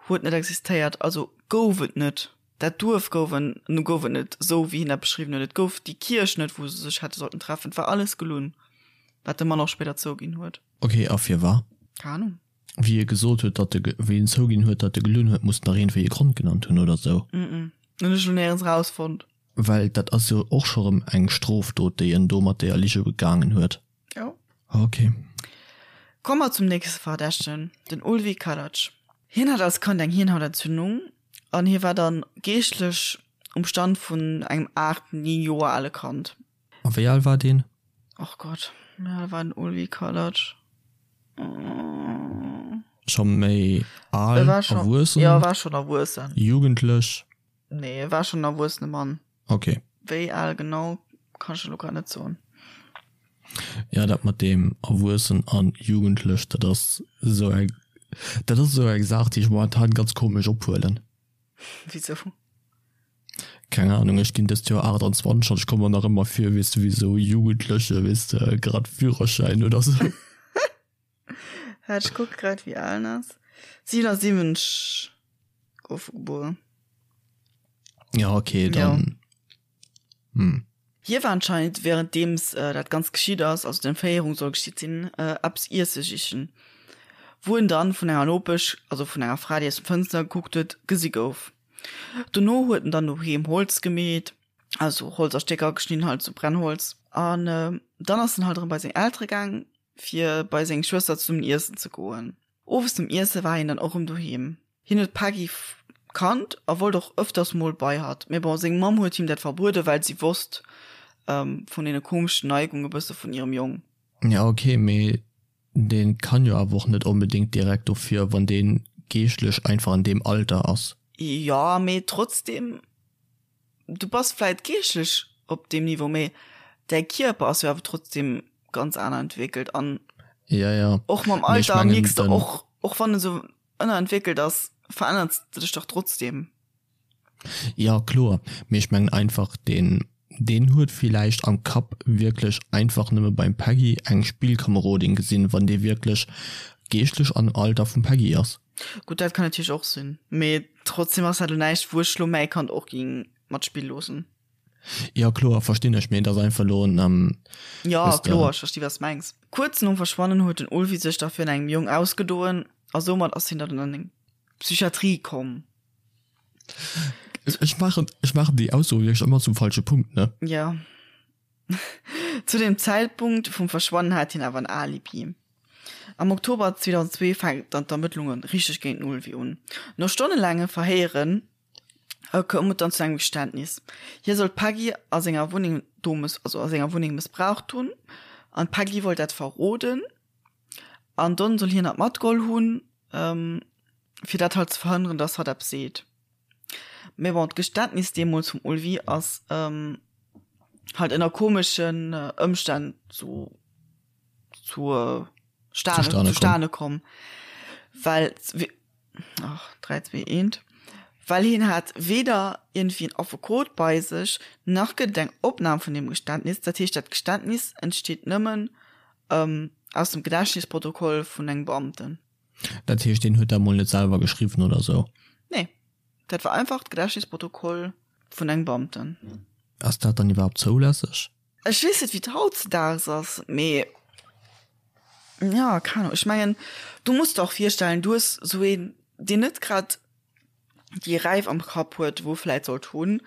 huet net existéiert, also gouf et net. Dat Duerf gouf en, nu gouf et net esou wéi hien dat beschriwwen huet, et gouf déi Kierch net wou se sech hätte sollten treffen, et war alles gelunn, wat de Mann och spéider zouginn huet. Ok, a firwat? Keng Ahnung. Wéi e gesot huet, datt e, wéi en zouginn huet, datt e gelunn huet, muss en dach iergendwéi e Grond genannt hunn oder sou. Mm, hunn ech lo néierens rausfonnt. Well dat ass jo och scho rëm eng Strofdot, déi en do mat deeër Lige begaangen huet. Jo. Ok. Komme mer zum nächste Verdächtegen, den Ulvi Kalac. Hien hat als Kand eng Hirnhautentzündung an hie war dann geeschtlech um Stand vun engem 8, 9 Joer ale Kand. A wéi al war deen? Och Gott, wéi al war den Ulvi Kalac? Scho méi al, erwuessen? Jo, e war schonn erwuessen. Jugendlech? Nee, e war schonn en erwuessene Mann. Ok. Wéi al genau, kann ech elo grad net soen. Ja, dat mat deem erwuessen an jugendlech, dat ass esou eng, dat ass esou eng Saach, déi ech momentan ganz komesch ophuelen. Wisou? Keng Ahnung, ech ginn dëst Joer 28 an ech komme mer nach ëmmer vir, weess de, wéi esou e Jugendleche, weess de, grad Führerschäin oder esou. Waart, ech kucke grad, wéi al en ass. 77 gouf e gebuer. Ja, okay, dann. Ja. Hm. Hie war anscheinend währenddeems dat Ganzt geschitt ass, also d'Entféierung soll geschitt sinn, eppes iesse sichen, wou en dann vun enger Nopesch, also vun enger Fra, déi aus dem Fënster gekuckt huet, gesi gouf. Dono huet en dann doheem Holz gemeet, also Holz a Stécker geschnidden, halt sou Brennholz, an dann ass en halt erëm bei seng Eltere gaang, fir bei seng Schwëster zesummen iessen ze goen. Owes nom Iesse war hien dann och erëm doheem. Hien huet d'Peggy kannt a wollt och ëfters mol bei hatt, mee bon, seng Mamm huet him dat verbueden, well si wosst vun deene komeschen Neigunge bësse vun hirem Jong. Ja ok, mee dee kann jo awer och net onbedéngt direkt dofir, wann dee geeschtlech einfach an deem Alter ass. Jo, mee trotzdem, du bass vläit geeschtlech op deem Niveau, mee däi Kierper ass jo awer trotzdem ganz aner entwéckelt an ja, ja. och mam Alter mierks de och, och wann en sou ënnerentwéckelt ass, verännert de dech dach trotzdem. Ja kloer, mee ech mengen einfach deen deen huet villäicht am Kapp wierklech einfach nëmme beim Peggy eng Spillkamerodin gesinn, wann dee wierklech geeschtlech am Alter vum Peggy ass. Gutt, dat kann natierlech och sinn, mee trotzdem ass dat elo näischt wou ech lo mäi Kand och ging mat spille loossen. Jo kloer, verstinn ech, mee et ass einfach elo en, Jo kloer, ech versti wat s mengs. Kuerz nom Verschwannen huet den Ulvi sech da virun engem Jong ausgedoen a soumat ass hien dann an eng Psychiatrie komm. Ech maachen, ech maachen déi Ausso wierklech ëmmer zum falsche Punkt, ne? Jo. Zu dem Zäitpunkt vum Verschwannen hat hien awer en Alibi. Am Oktober 2002 fänken dann d'Ermëttlunge richteg géint den Ulvi un. No stonnelaange Verhéieren koum et dann zu engem Geständnis. Hie soll d'Peggy a senger Wunneng do also a senger Wunneng mëssbraucht hunn an d'Peggy wollt dat verroden an donn soll hien dat matgeholl hunn, fir dat halt ze verhënneren, dass hatt eppes seet. Mee bon, d'Geständnis deemools vum Ulvi ass halt ënner komeschen Ëmstänn zu zur Stane, zustane komm. Well, ach, 3, 2, 1, well hien hat weder irgendwie en Affekot bei sech, nach gëtt et eng Opnam vun deem Geständnis. Dat heescht, dat Geständnis entsteet nëmmen ähm, aus dem Gedächtnisprotokoll vun engem Beamten. Dat heescht, deen huet dat mol net selwer geschriwwen oder sou? Nee, dat war einfach d'Gedächtnisprotokoll vun engem Beamten. Ass dat dann iwwerhaapt zoulässeg? Ech weess net wéi et hautzedaags ass, mee. Ja, keng Ahnung. Ech mengen, du muss der och virstellen, du hues sou een, deen net grad déi Räif am Kapp huet, wou e vläit sollt hunn,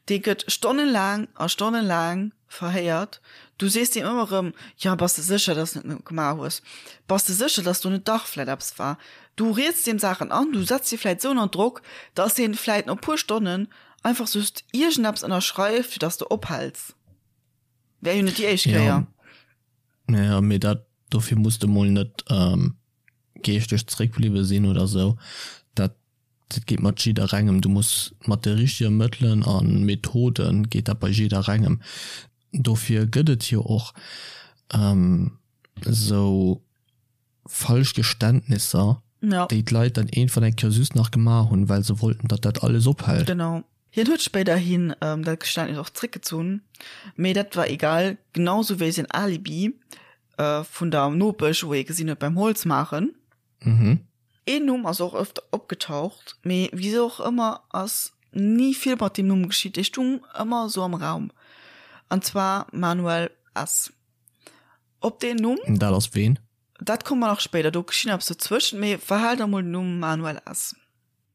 dee gëtt stonnelaang a stonnelaang verhéiert. Du sees deem ëmmer erëm, Jo, bass de sécher, dass de et net gemaach hues? Bass de sécher, dass do net dach vläit eppes war? Du rieds deem Saachen an, du setz hie vläit esou ënner Drock, dass hien vläit no e puer Stonnen einfach just iergendeppes ënnerschreift, fir dass de ophäls. Wär jo net déi éischt Kéier. Ja, mee dat, dofir muss de mol net geeschteg zréckbliwwe sinn oder sou. Dat, dat geet mat jidderengem. Du muss mat de richtege Mëttelen a Methode geet dat bei jidderengem. Dofir gëtt et jo och sou falsch Geständnisser, ja. déi d'Leit dann iergendwann eng Kéier just nach gemaach hunn, well se wollten, datt dat alles ophält. Genau. Hien huet spéiderhin ähm, dat Geständnis och zréckgezunn, mee dat war egal, genau sou wéi säin Alibi äh, vun der Nopesch, wou ee gesinn huet beim Holz maachen. Mhm. Een Numm ass och öfter opgetaucht, mee wisou och ëmmer ass ni vill mat deem Numm geschitt, dee stung ëmmer sou am Raum, an zwar Manuel S. Op deen Numm. Dat ass ween? Dat komme mer nach spéider, do geschitt eppes dozwëschent, mee verhal der mol den Numm Manuel S.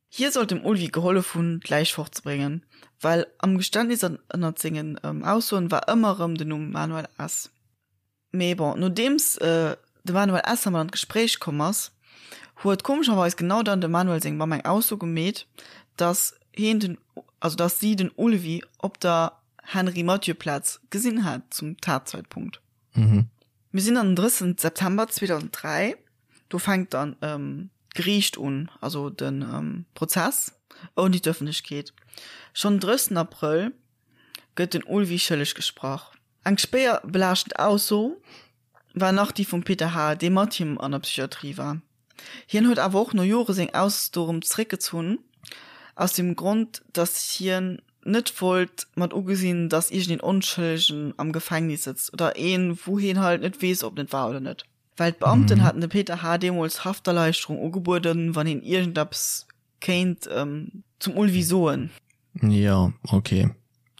Hie sollt dem Ulvi gehollef hunn, d'Läich fortzebréngen, well am Geständnis an ënnert sengen Aussoen war ëmmer erëm den Numm Manuel S. Mee bon, nodeems de Manuel S. mat an d'Gespréich komm ass, huet komescherweis genau dann dem Manuel seng Mamm eng Ausso gemeet, dass hien den, also dass si den Ulvi op der Henri-Mathieu-Plaz gesinn hat zum Tatzeitpunkt. Mhm. Mir sinn an den 30 September 2003, do fänkt dann d'Geriicht un, also de Prozess ouni d'Ëffentlechkeet. Schonn den 30 Abrëll gëtt den Ulvi schëlleg gesprach. Eng schwéier belaaschtend Ausso war nach déi vum Peter H., dee mat him an der Psychiatrie war. Hien huet awer och no Jore seng Ausso erëm zeréckgezunn, aus dem Grond, datt hien net wollt mat ugesinn, datt iergendeen Onschëllegen am Gefängnis sëtzt oder een, wou hien halt net weess, ob en et war oder net. Well d'Beamten haten dem Peter H. deemools Hafterleichterung ugebueden, wann hien iergendeppes kéint zum Ulvi soen. Jo, ok.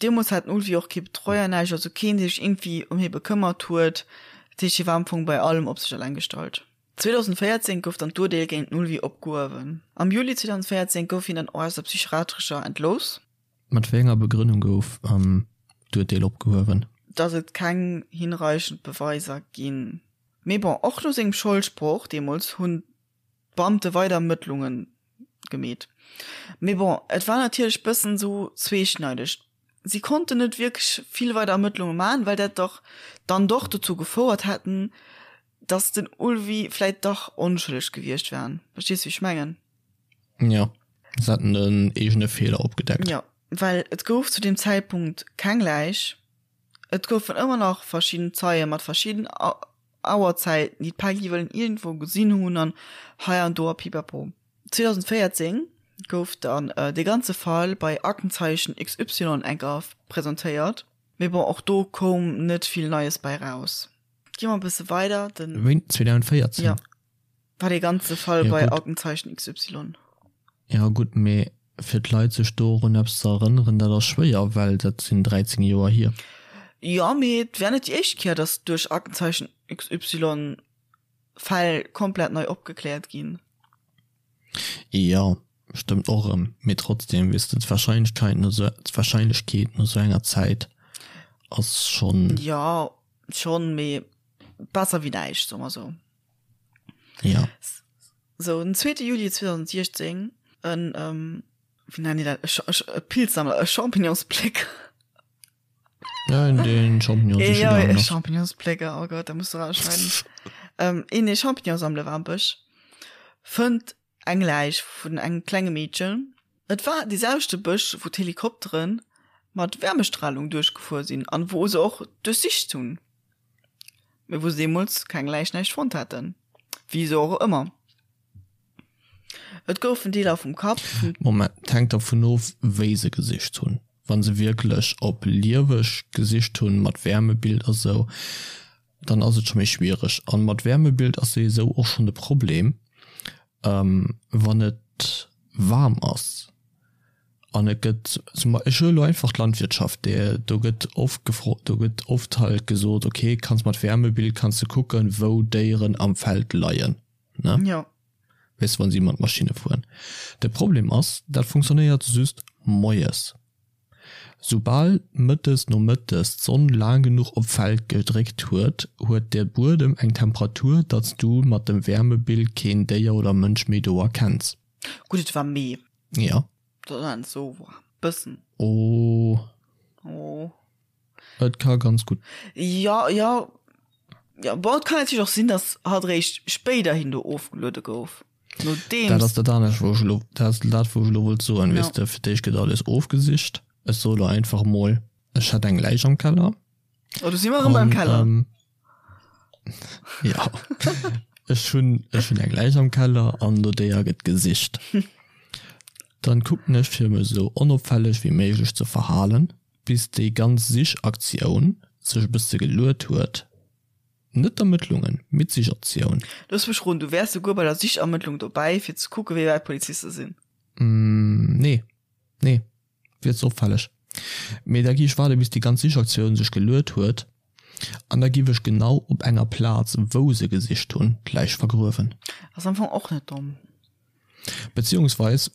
Deemools hat den Ulvi och kee Betreuer, näischt, also keen, dee sech iergendwéi ëm hie bekëmmert huet. Dat heescht, hie war am Fong bei allem op sech eleng gestallt. 2014 gouf dann d'Urdeel géint den Ulvi opgehuewen. Am Juli 2014 gouf hien dann och aus der psychiatrescher entlooss. Mat wéi enger Begrënnung gouf d'Urdeel opgehuewen? Datt et keng hinreichend Beweiser ginn. Mee bon, och no sengem Scholdsproch deemools hunn d'Beamte weider Ermëttlunge gemeet. Mee bon, et war natierlech bëssen esou zweeschneideg. Si konnten net wierklech vill weider Ermëttlunge maachen, well dat dach dann doch dozou gefouert hätten, dass den Ulvi vläit dach onschëlleg gewiescht wär. Verstees wéi ech mengen? Jo, se hätten en eegene Feeler opgedeckt. Jo, well et gouf zu deem Zäitpunkt keng Läich. Et goufen ëmmer nach verschidden Zeie mat verschidden Auerzäiten, déi d'Peggy wëllen iergendwou gesinn hunn an hei an do a pipapo. 2014 gouf dann dee ganze Fall bei Aktenzeichen XY enker presentéiert, mee bon, och do koum net vill Neies bei raus. Gi mer e bësse weider, den. Wéini? 2014? Jo. War dee ganze Fall ja, bei Aktenzeichen XY. Ja gutt, mee fir d'Leit sech dorun eppes ze erënneren, dat ass schwéier, well dat sinn 13 Joer hier. Jo, mee et wär net déi éischt Kéier, datt duerch Aktenzeichen XY Fäll komplett nei opgekläert ginn. Jo, stëmmt och erëm, mee trotzdem, weess de, d'Wahrscheinlechkeit no sou, d'Wahrscheinlechkeet no sou enger Zäit ass schonn. Jo, schonn, mee besser wéi näischt, soe mer sou. Ja. So, den 2. Juli 2016, en, ähm, wéi nennen déi dat, e, e, e Pilzsammler, e Champignonsplécker. Ja, en deen Champignon siche Ja, e Champignonsplécker, oh Gott, da muss du rausschneiden. ähm, een, dee Champignon sammele war am Bësch, fënnt eng Läich vun engem klenge Meedchen. Et war dee selwechte Bësch, wou d'Helikoptere mat Wärmestralung duerchgefuer sinn an wou se och duerchsicht hunn. Mee wou se deemools keng Läich näischt fonnt haten. Wisou och ëmmer. Et goufen Deeler vum Kapp, vum. Moment, et hänkt dervun of, wéi se gesicht hunn. Wa se wierklech op lieweg gesicht hunn, mat Wärmebild a sou, dann ass et scho méi schwiereg. An mat Wärmebild ass souwisou och schonn de Problem, wann et waarm ass. An et gëtt zum Beispill, ech huele elo einfach d'Landwirtschaft, déi, do gëtt oft gefro, do gëtt oft halt gesot, okay, kanns mat Wärmebild kanns de kucken, wou Déieren am Feld leien, ne? Jo. Weess de, wa si mat Maschinne fueren. De Problem ass, dat funktionéiert just moies. Soubal mëttes nomëttes d'Sonn laang genuch op d'Feld gedréckt huet, huet de Buedem eng Temperatur, datt s du mat dem Wärmebild keen Déier oder Mënsch méi do erkenns. Gutt, et war Mee. Jo. Dat ass net sou waarm. Bëssen. Oh. Oh. Et ka ganz gutt. Jo, jo. Jo, bon, et kann natierlech och sinn, datt hatt eréischt spéiderhin do ofgeluede gouf. Nodeems. Dat ass dat anescht, wou ech elo, dat ass dat, wou ech elo wollt soen, weess de, fir d'éischt gëtt alles ofgesicht. Ech soe lo einfach mol, ech hätt eng Läich am Keller. Oh, do si mer erëm beim Keller. Jo, ech hunn, ech hunn eng Läich am Keller an no deeër gëtt gesicht. Dann kucken ech, fir mech esou onopfälleg wéi méiglech ze verhalen, bis déi ganz Sichaktioun sech e bësse geluet huet. Net d'Ermëttlungen, mee d'Sichaktioun. Looss mech roden, du wäers souguer bei der Sichermëttlung dobäi, fir ze kucken, wéi wäit d'Poliziste sinn? Nee, nee, wier ze opfälleg. Mee da gi ech waarde bis déi ganz Sichaktioun sech geluet huet an da giff ech genau op enger Plaz, wou se gesicht hunn, d'Läich vergruewen. Ass am Fong och net domm. Beziehungsweis,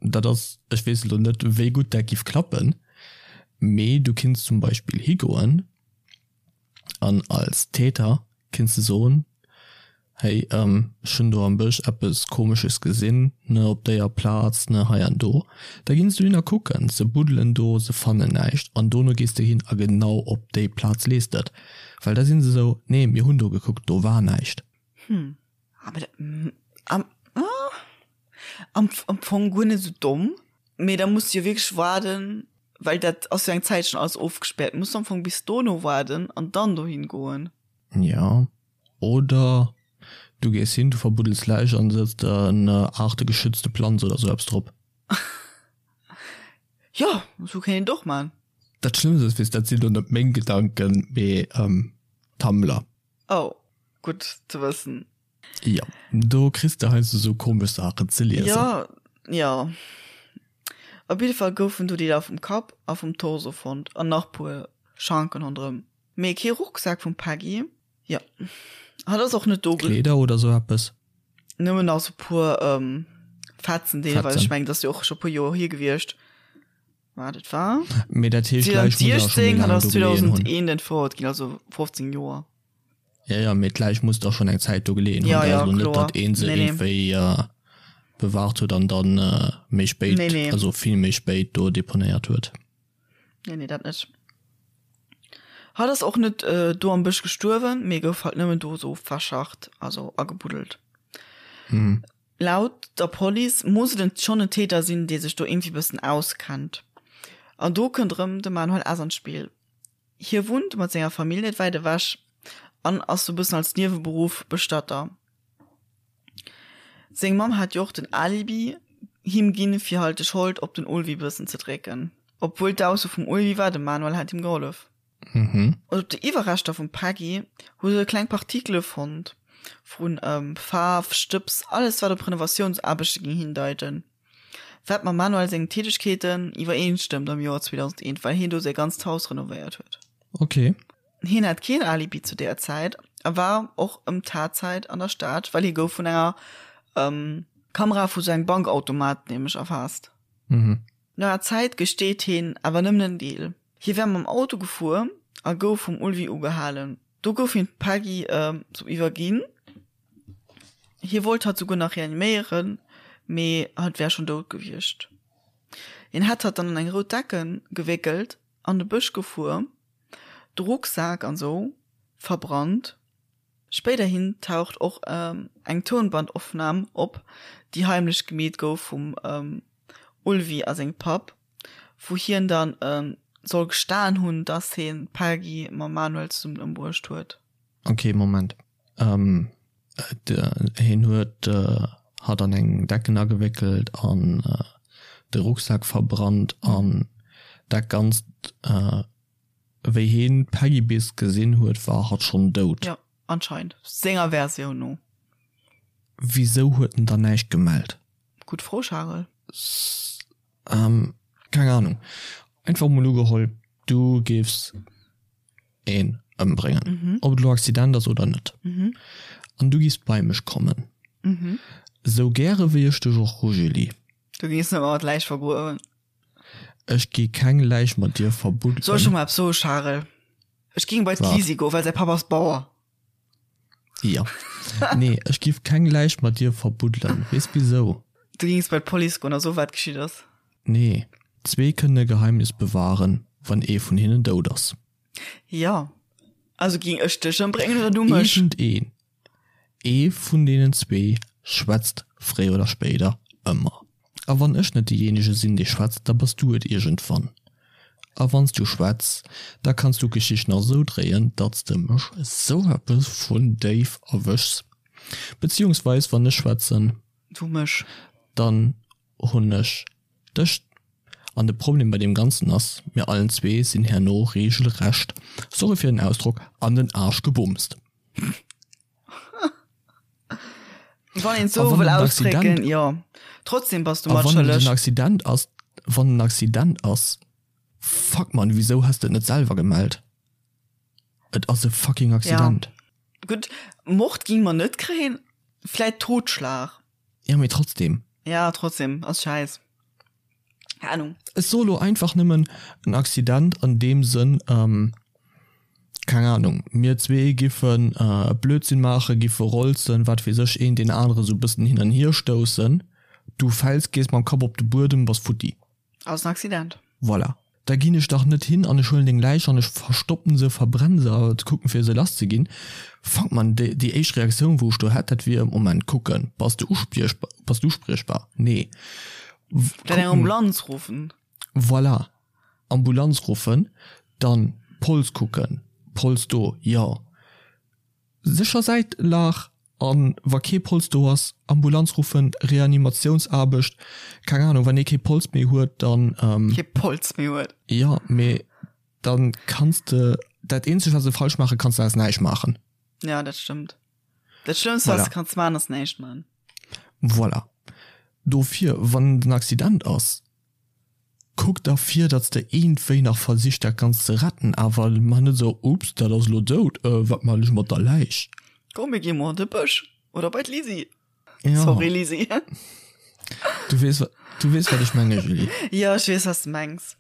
dat ass, ech weess elo net, wéi gutt dat giff klappen, mee du kinns zum Beispill higoen An als Täter kinns de soen, hey, ech hunn do am Bësch eppes Komesches gesinn, ne, op déier Plaz, ne, hei an do. Da ginn se dohin a kucken, se buddelen do, se fannen näischt an dono gees de hin a genau op déi Plaz lees de et. Well da sinn se esou, nee, mir hunn do gekuckt, do war näischt. Hm, awer dat, am, am, am Fong guer net esou domm, mee da muss de jo wierklech waarden, Well dat ass jo eng Zäit schon alles ofgespärt. Muss am Fong bis dono waarden an dann dohin goen. Ja, oder du gees hin, du verbuddels Läich an sëtz der en aartegeschützte Planz oder sou eppes drop. Jo, sou kéint een et och man. Dat Schlëmmst ass, weess, dat sinn lo net meng Gedanken, mee Tumblr. Oh, gutt ze wëssen. Jo, do kriss de heiansdo sou komesch Saachen ze liesen. Jo, jo. Op jidde Fall goufen do Deeler vum Kapp a vum Torso fonnt an nach puer Schanken ronderëm. Mee kee Rucksak vum Peggy. Jo, hatt ass och net do. Kleeder oder sou eppes? Nëmmen nach sou puer Fetzen deelweis. Ech mengen, dat ass jo och scho puer Joer hier gewiescht. Waart, et war. Mee dat heescht, d'Läich muss awer scho méi 2016, hatt laang ass do geleeën hunn. 2001 entfouert ginn, also 15 Joer. Ja, ja, mee d'Läich muss da schon eng Zäit do geleeën hunn. Ja, ja, Also net, kloer. datt een se Nee, nee. iergendwéi äh, bewahrt huet an dann äh, méi spéit, Nee, nee. also vill méi spéit do deponéiert huet. Nee, nee, dat net. Hatt ass och net äh, do am Bësch gestuerwen, mee gouf halt nëmmen do sou verscharrt, also agebuddelt. Mhm. Laut der Police muss et en schonn en Täter sinn, dee sech do iergendwéi bëssen auskennt. An do kënnt erëm de Manuel S. an d'Spill. Hie wunnt mat senger Famill net wäit ewech an ass sou bëssen als Nieweberuff Bestatter. Seng Mamm hat jo och den Alibi him ginn, fir halt de Schold op den Ulvi bëssen ze drécken. Obwuel d'Ausso vum Ulvi war, de Manuel hätt him gehollef. Mhm. An op de Iwwerreschter vum Peggy hu se kleng Partikele fonnt, vu Faarf, Stëbs, alles wat op Renovatiounsaarbechte géing hindeiten. Wat mam Manuel sengen Tätegkeeten iwwereenstëmmt am Joer 2001, well hien do säi ganzt Haus renovéiert huet. Ok. Hien hat keen Alibi zu där Zäit a war och ëm d'Tatzäit an der Stad, well hie gouf vun enger Kamera vu sou engem Bankautomat nämlech erfaasst. Mhm. No enger Zäit gesteet hien awer nëmmen en Deel. Hie wär mam Auto gefuer a gouf vum Ulvi ugehalen. Do gouf him d'Peggy sou iwwerginn. Hie wollt hatt souguer nach reaniméieren, mee hatt wär schonn dout gewiescht. Hien hätt hatt dann an eng rout Decken gewéckelt, an de Bësch gefuer, de Rucksak an sou verbrannt. Spéiderhin taucht och eng Tounbandopnam op, déi heimlech gemeet gouf vum Ulvi a sengem Papp, wou hien dann soll gestan hunn, dass hien d'Peggy mam Manuel zesummen ëmbruecht huet. Ok, Moment. Hien huet hatt an eng Decken agewéckelt an de Rucksak verbrannt an dat Ganzt. Wéi hien d'Peggy bis gesinn huet, war hatt schonn dout. Jo, anscheinend. Senger Versioun no. Wisou huet en dann näischt gemellt? Gutt Fro, Charel. Keng Ahnung. Einfach mol ugeholl, du géifs een ëmbréngen. Mhm. Ob et elo Accident ass oder net. Mhm. An du giffs bei mech kommen. Mhm. Sou gäre wéi ech dech och hu, Julie. Du géings net mat Läich vergruewen. Ech gi keng Läich mat dir verbuddelen. Soll ech der mol eppes soen, Charel? Ech géing bei d'Lisi goen, well säi Papp ass Bauer. Jo. Nee, ech giff keng Läich mat dir verbuddelen. Weess wisou? Du géings bei d'Police goen a soen, wat geschitt ass. Nee, zwee kënnen e Geheimnis bewahren, wann ee vun hinnen dout ass. Jo. Also ging ech dech ëmbréngen oder du mech? Iergendeen, ee vun deenen zwee schwätzt fréier oder spéider ëmmer. A wann ech net deejéinege sinn, dee schwätzt, da bass du et iergendwann. A wann s du schwätz, da kanns du d'Geschicht nach esou dréien, datt s de mech esou eppes vun déif erwëschs. Beziehungsweis, wann ech schwätzen, Du mech. dann hunn ech dech. An de Problem bei deem Ganzen ass, mir allen zwee sinn herno regelrecht, sorry fir den Ausdrock, an den Aarsch gebumst. Wann een et sou wëll ausdrécken, jo. Trotzdem bass du mat schëlleg. A wann et en Accident ass, wann en Accident ass, fuck man, wisou has de et net selwer gemellt? Et ass e fucking Accident. Ja. Gutt, Mord ging mer net kréien, vläit Totschlag. Ja, mee trotzdem. Ja, trotzdem, ass schäiss. Keng Ahnung. Ech soe lo einfach nëmmen en Accident an deem Sënn, keng Ahnung, mir zwee giffen e Blödsinn maachen, giffe rolzen, wat weess ech, een deen anere sou bëssen hin an hier stoussen, du fäls, gees mam Kapp op de Buedem, bass futti. Ass en Accident. Voilà. Da ginn ech dach net hin an ech huelen deng Läich an ech verstoppen se, verbrennen se a kucken fir se lass ze ginn. Fuck man, déi déi éischt Reaktioun wou ech do hätt, dat wier, Moment, kucken, bass de uspriechbar, bass du uspriechbar? Nee. Dann eng Ambulanz ruffen. Voilà, Ambulanz ruffen, dann Pols kucken, Pols do, jo. Sécher Säitlag an wa kee Pols do ass, Ambulanz ruffen, Reanimatiounsaarbecht, keng Ahnung, wann ee kee Pols méi huet, dann. Kee Pols méi huet. Jo, mee dann kanns de, dat eenzegt wat s de falsch maache kanns, dat ass näischt maachen. Ja, dat stëmmt. Dat schlëmmst wat s de kanns maachen, ass näischt maachen. Voilà. Dofir, wann et en Accident ass, Kuck da vir, datt s de iergendwéi nach versichs dat Ganzt ze retten, awer mach net esou, Ups, dat ass elo dout, wat man ech mat der Läich? Komm mir gi mol an de Bësch oder bei d'Lisi. Ja. Sorry Lisi. Du weess, du weess wat ech menge Julie. Jo, ech weess wat s de mengs.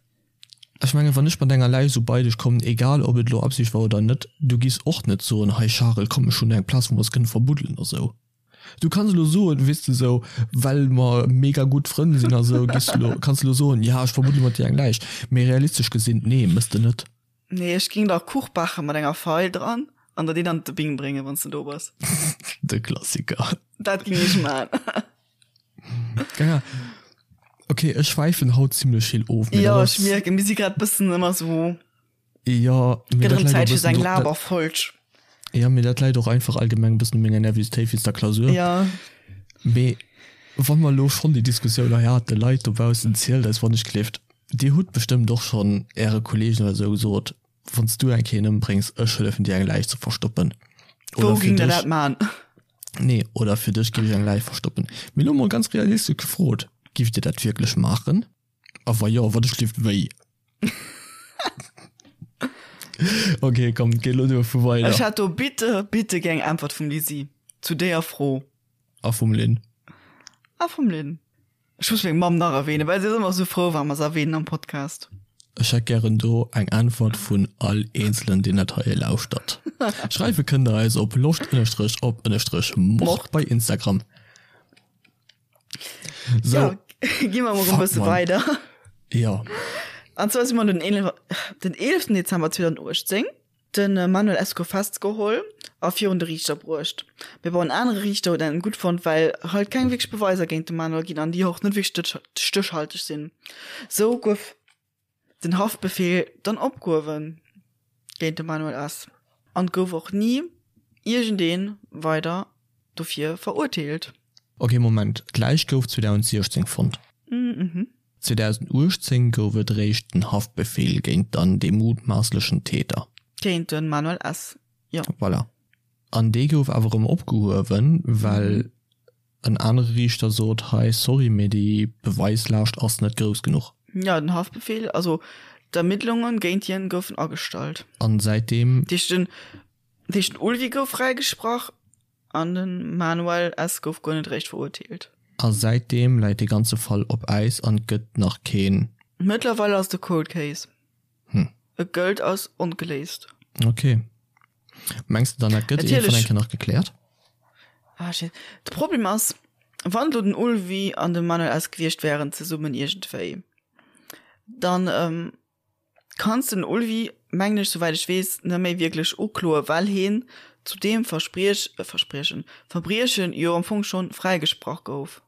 Ech menge wann ech mat enger Läich esou bei dech kommen, egal ob et elo Absicht war oder net, du giss och net soen, hei Charel, komm ech hunn eng Plaz wou mer eis kënne verbuddelen oder esou. Du kanns elo soen, weess de sou, well mer mega gutt Frënn sinn a sou, giss elo, kanns elo soen, ja ech verbuddele mat dir eng Läich, mee realistesch gesinn, nee, mëss de net. Nee, ech ging der Kuch bache mat enger Feil dran an der deen an de Bing bréngen, wann s de do bass. De Klassiker. Dat ging ech man. Ja. Okay, ech schwäifen haut zimlech vill of. mee Jo, dat ech ass. mierken, mir si grad bëssen ëmmer sou. Jo, mee dat läit och e bëssen do. Jo, mee dat läit och einfach allgemeng e bëssen u menger Nervositéit wéinst der Klausur. Jo. Mee wa mer elo schonn déi Diskussioun hei haten, Leit dobaussen, zielt eis wann ech gleeft, Dir hutt bestëmmt och schonn Äre Kolleegen oder esou gesot, Wann s du eng Kéier een ëmbréngs, ech hëllefen dir eng Läich ze verstoppen. Wou géing der dat man? Nee, oder fir dech géif ech eng Läich verstoppen. Mee elo mol ganz realistesch gefrot, Giff Dir dat wierklech maachen? A wa jo, wat ech gleeft, wéi? Okay, komm, géi lo duerfu weider. Ech hätt do bitte, bitte gär eng Äntwert vum Lisi zu deeër Fro. A vum Lynn. A vum Lynn. Ech muss meng Mamm nach erwähnen, well si ass ëmmer sou frou, wa mer se erwähnen am Podcast. Ech hätt gären do eng Äntwert vun all Eenzelen, deen dat hei lauschtert. Schreiwe kënnt der eis op loscht ënnerstrech op ënnerstrech mord bei Instagram. So, ja, gi mer mol e bësse weider. Ja. An zwar si mer den 11, den 11. Dezember 2018 den äh, Manuel S. gouf festgeholl a virun de Riichter bruecht. Mee bon, en anere Riichter huet en gutt fonnt, well halt keng wierklech Beweiser géint de Manuel ginn an déi och net wierklech stéchhalteg sinn. Sou gouf den Haftbefehl dann opgehuewen géint de Manuel S. An gouf och ni iergendee weider dofir verurteelt. Ok, Moment, d'Läich gouf 2016 fonnt. 2018 gouf et réischt den Haftbefehl géint dann dee mutmaasslechen Täter. Géint de Manuel S., jo. Voilà. An dee gouf awer erëm opgehuewen, well En anere Riichter sot, hei, sorry, mee déi Beweislaascht ass net grouss genuch. Ja, den Haftbefehl, also d'Ermittlungen géint hien goufen agestallt. An säitdeem. Dat heescht, den, dat heescht, den Ulvi gouf fräigesprach an den Manuel S. gouf guer net eréischt verurteelt. A säitdeem läit dee ganze Fall op Äis an et gëtt nach keen. Mëttlerweil ass et e Cold Case. Hm. Et gëllt als ongeléist. Ok. Mengs de dann dat gëtt iergendwann eng Kéier nach gekläert? Ah, shit. De Problem ass, wann elo den Ulvi an de Manuel S. gewiescht wären zesummen iergendwéi, dann ähm, kanns de den Ulvi, mengen ech, souwäit ech weess, net méi wierklech ukloen, well hien zu deem Verspriech, äh, Verspriechen, Verbriechen jo am Fong schonn fräigesprach gouf.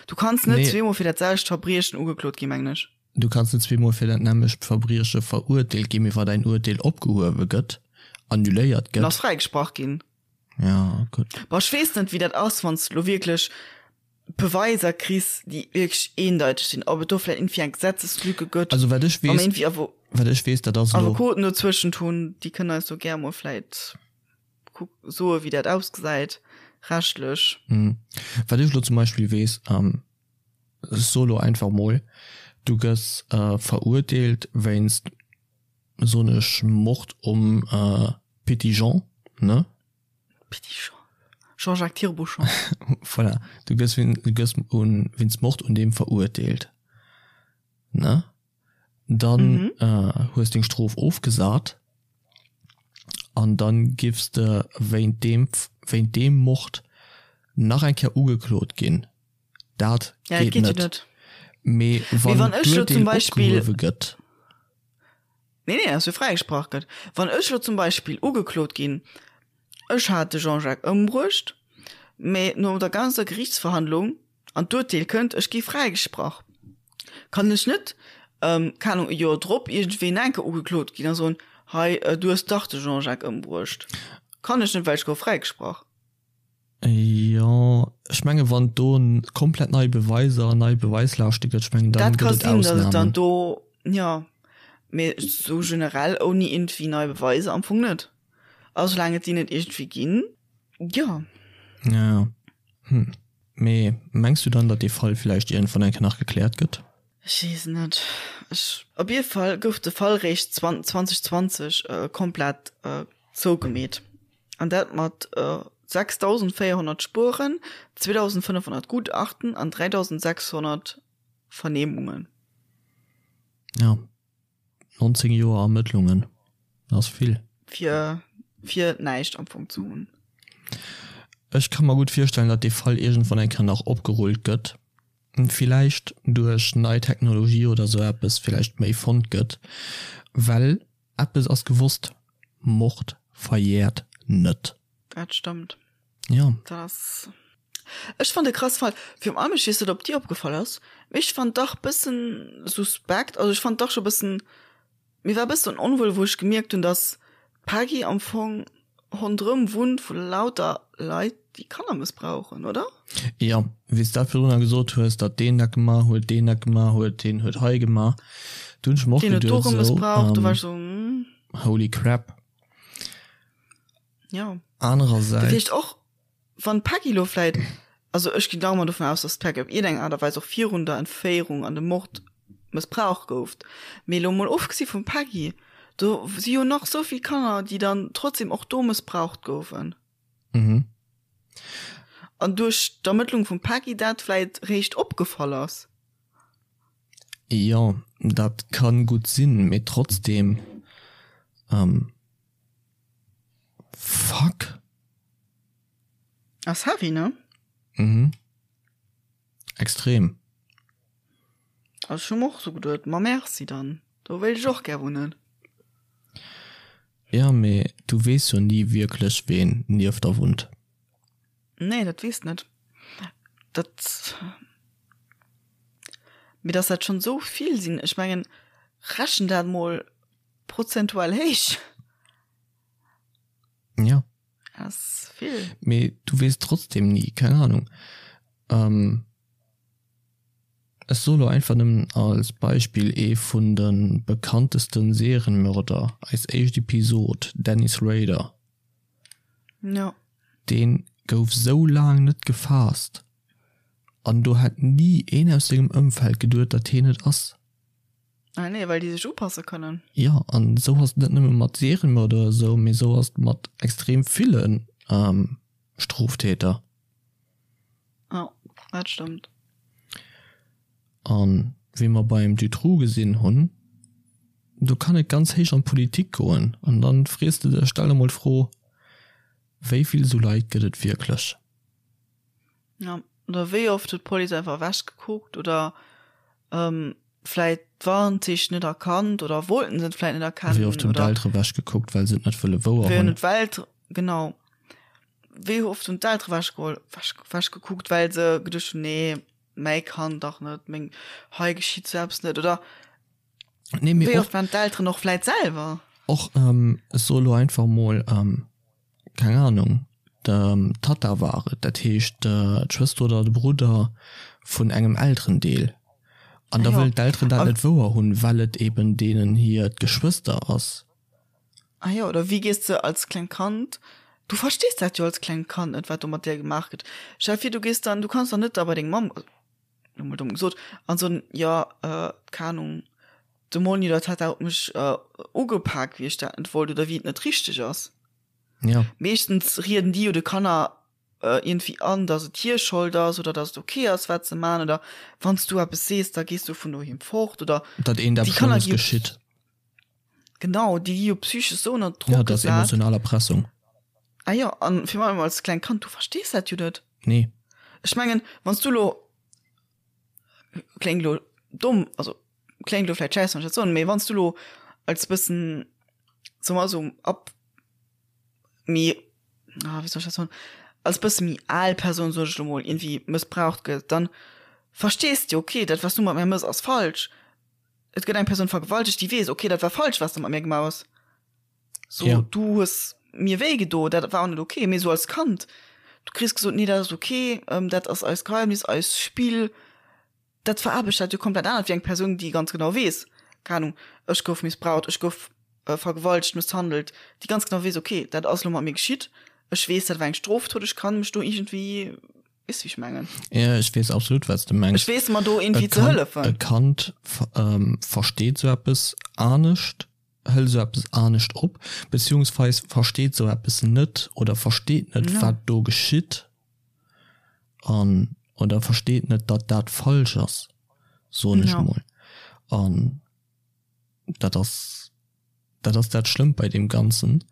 Du kanns net Nee. zweemol fir dat selwecht Verbriechen ugeklot ginn, mengen ech. Du kanns net zweemol fir dat nämmlecht Verbrieche verurteelt ginn, mee wa däin Urteel opgehuewe gëtt, annuléiert Dann ass gëtt. fräigesprach ginn. Ja, gutt. Bon, ech weess net, wéi dat ass, wann s de lo wierklech Beweiser kriss, déi wierklech eendeiteg sinn, ob et do vläicht iergendwéi eng Gesetzeslücke gëtt, Also wat ech wa mer weess, iergendwéi Avo wat ech weess, dat ass elo. Avocoten dozwëschent hunn, déi kënnen eis do gär mol vläicht kuck soe wéi dat ausgesäit rechtlech. Wat ech elo zum Beispill weess, ech soe lo einfach mol, du gëss verurteelt wéinst, soen ech, Mord um Petit Jean, ne? Petit Jean. Jean-Jacques Tirabouchon. Voilà, du gëss du gëss un wéinst Mord un deem verurteelt, ne? Dann hues deng Strof ofgesat an dann giffs de wéint deem wéint deem Mord nach eng Kéier ugeklot ginn. Dat Ja, dat geet geet jo net. net. Mee Mee wann wann ech lo d'Urteel zum Beispill opgehuewe gëtt. Nee, nee, dass jo fräigesprach gëtt. Wann ech lo zum Beispill ugeklot ginn, ech hat de Jean-Jacques ëmbruecht, mee no der ganzer Gerichtsverhandlung an d'Urteel kënnt, ech gi fräigesprach, kann ech net, keng Ahnung, e Joer drop iergendwéi nach eng Kéier ugeklot ginn a soen, hei, du hues dach de Jean-Jacques ëmbruecht. Kann ech net, well ech gouf fräigesprach. Jo, ech menge wann et do komplett nei Beweiser an nei Beweislaaschte gëtt, ech mengen dann Dat ka gëtt et sinn, datt et dann Ausnamen. do, jo, mee sou generell ouni iergendwéi nei Beweiser am Fong net. A soulaang et déi net iergendwéi ginn, jo. Ja, ja. Hm. Mee mengs du dann, datt dee Fall villäicht iergendwann eng Kéier nach gekläert gëtt? Ech weess net. Ech, op jidde Fall gouf de Fall réischt 2020 komplett zougemeet. An dat mat 6.400 Spueren, 2.500 Gutachten an 3.600 Vernehmungen. Ja, 19 Joer Ermëttlungen, dat ass vill. Fir, fir näischt am Fong ze hunn. Ech ka mer gutt virstellen, datt dee Fall iergendwann eng Kéier nach opgerullt gëtt. Villäicht duerch nei Technologie oder sou eppes villäicht méi fonnt gëtt, well Eppes ass gewosst, Mord verjährt net. Dat stëmmt. Jo. Dat ass, ech fand e krass Fall. Virun allem, ech weess net ob dir opgefall ass, mee ech fand dach bëssen suspekt, also ech fand dach scho bëssen, mir war bëssen onwuel wou ech gemierkt hunn, dass d'Peggy am Fong Ronderëm wunnt vu lauter Leit déi Kanner mëssbrauchen, oder? Jo, wéi s dat virdrunner gesot hues, datt deen dat gemaach huet, deen dat gemaach huet, deen huet hei gemaach, do hunn ech mer och Deen huet do geduet erëm esou, mëssbraucht, do war ech esou, hm. Holy crap. Jo. Dat Anerersäits. heescht och, wann d'Peggy lo vläit, also ech ginn nach ëmmer dovun aus, datt d'Peggy op iergendeng Aart a Weis och virun der Entféierung an dem Mord mëssbraucht gouf, mee lo mol ofgesi vum Peggy, do si jo nach sou vill Kanner, déi dann trotzdem och do mëssbraucht goufen. Mhm. An duerch d'Ermëttlung vum Peggy dat vläit réischt opgefall ass. Jo, dat kann gutt sinn, mee trotzdem, ähm, fuck. Ass heavy, ne? Mhm. Extrem. Also ech hu mer och sou geduet, ma merci dann, do wéilt ech och gär wunnen. Ja, mee du weess jo ni wierklech ween nieft der wunnt. Nee, dat weess net. Dat, mee dass dat schonn sou vill sinn, ech mengen, rechen dat mol prozentual héich. Ja. Ass vill. Mee du weess trotzdem ni, keng Ahnung. Ähm, ech soe lo einfach nëmmen als Beispill ee vun de bekanntesten Serienmörder, eis éischt Episod, Dennis Rader. Ja. Deen gouf sou laang net gefaasst an do hätt ni een aus sengem Ëmfeld geduet, datt hien et ass. Ah nee, well déi sech upasse kënnen. Jo, an esou ass et net nëmme mat Serienmörder oder esou, mee esou ass et mat extrem ville Stroftäter. Jo, dat stëmmt. An wéi mer beim Dutroux gesinn hunn, do kann et ganz héich an d'Politik goen. An dann frees de dech, stell der mol d'Fro, wéi vill esou Leit gëtt et wierklech? Ja, oder wéi oft huet d'Police einfach ewech gekuckt oder vläit d'Warnzeechen net erkannt oder wollten se et vläit net erkennen. Wéi oft hunn d'Eltere wech gekuckt, well se et net wëlle wouer hunn. Wéi hunn d'Welt, genau. Wéi oft hunn d'Eltere wech geholl, wech, wech gekuckt, well se geduecht hunn, nee, mäi Kand dach net, meng, hei geschitt sou eppes net oder Nee, mee wéi oft waren d'Elteren och vläit selwer. Och, ech soe lo einfach mol, keng Ahnung, d'Tatta war et, dat heescht d'Schwëster oder de Brudder vun engem Elterendeel. An da wëllen d'Elteren dat net wouer hunn, well et eben deenen hiert Geschwëster ass. Ah jo, oder wéi gees de als klengt Kand, du verstees dat jo als klengt Kand net, wat do mat dir gemaach gëtt. Stell vir, du gees dann, du kanns dann net da bei deng Mamm, lo mol domm gesot, an soen, jo, keng Ahnung, de Monni oder d'Tatta huet mech ugepak, wéi ech dat net wollt oder wéi et net richteg ass. Ja. Meeschtens rieden déi jo de Kanner iergendwéi an, datt et hir Schold ass oder datt et ok ass, wat se man oder wann s du eppes sees, da gees du vun doheem fort oder. Datt eent eppes Schlëmmes geschitt. Genau, déi gi jo psychesch esou ënner Drock gesat. Ja, dat ass emotional Erpressung. Ah jo, an virun allem als klengt Kand, du verstees dat jo net. Nee. Ech mengen, wann s du elo, kléngt elo domm, also kléngt elo vläicht schäiss, wann ech dat soen, mee wann s du elo als bëssen, soe mer esou, ab méi, ah wéi soll ech dat soen, als bësse méi al Persoun, soen ech elo mol, iergendwéi mëssbraucht gëtt, dann verstees de jo, okay, dat wat s du mat mär mëss ass falsch. Et gëtt eng Persoun vergewaltegt, déi weess, okay, dat war falsch, wat s de mat mär gemaach hues. So, Ja. du hues mir wéi gedo, dat war och net okay. Mee sou als Kand, du kriss gesot, nee, dat ass okay, ähm, dat ass eist Geheimnis, eist Spill. Dat veraarbecht dat jo komplett anert wéi eng Persoun, déi ganz genau weess, keng Ahnung, ech gouf missbraucht, ech gouf äh, vergewaltegt, mësshandelt, déi ganz genau weess, okay, dat ass lo mat mir geschitt, ech weess, dat war eng Strofdot, ech kann mech do iergendwéi, weess wéi ech mengen? Ja, ech weess absolut, wat s de mengs. Ech weess mer do iergendwéi ze hëllefen. E Kand ähm, versteet sou eppes anescht. Hëlt esou eppes anescht op, beziehungsweis versteet esou eppes net oder versteet net, wat do geschitt an oder versteet net, datt dat falsch ass, soen ech mol. An dat ass, dat ass dat Schlëmmt bei deem Ganzen.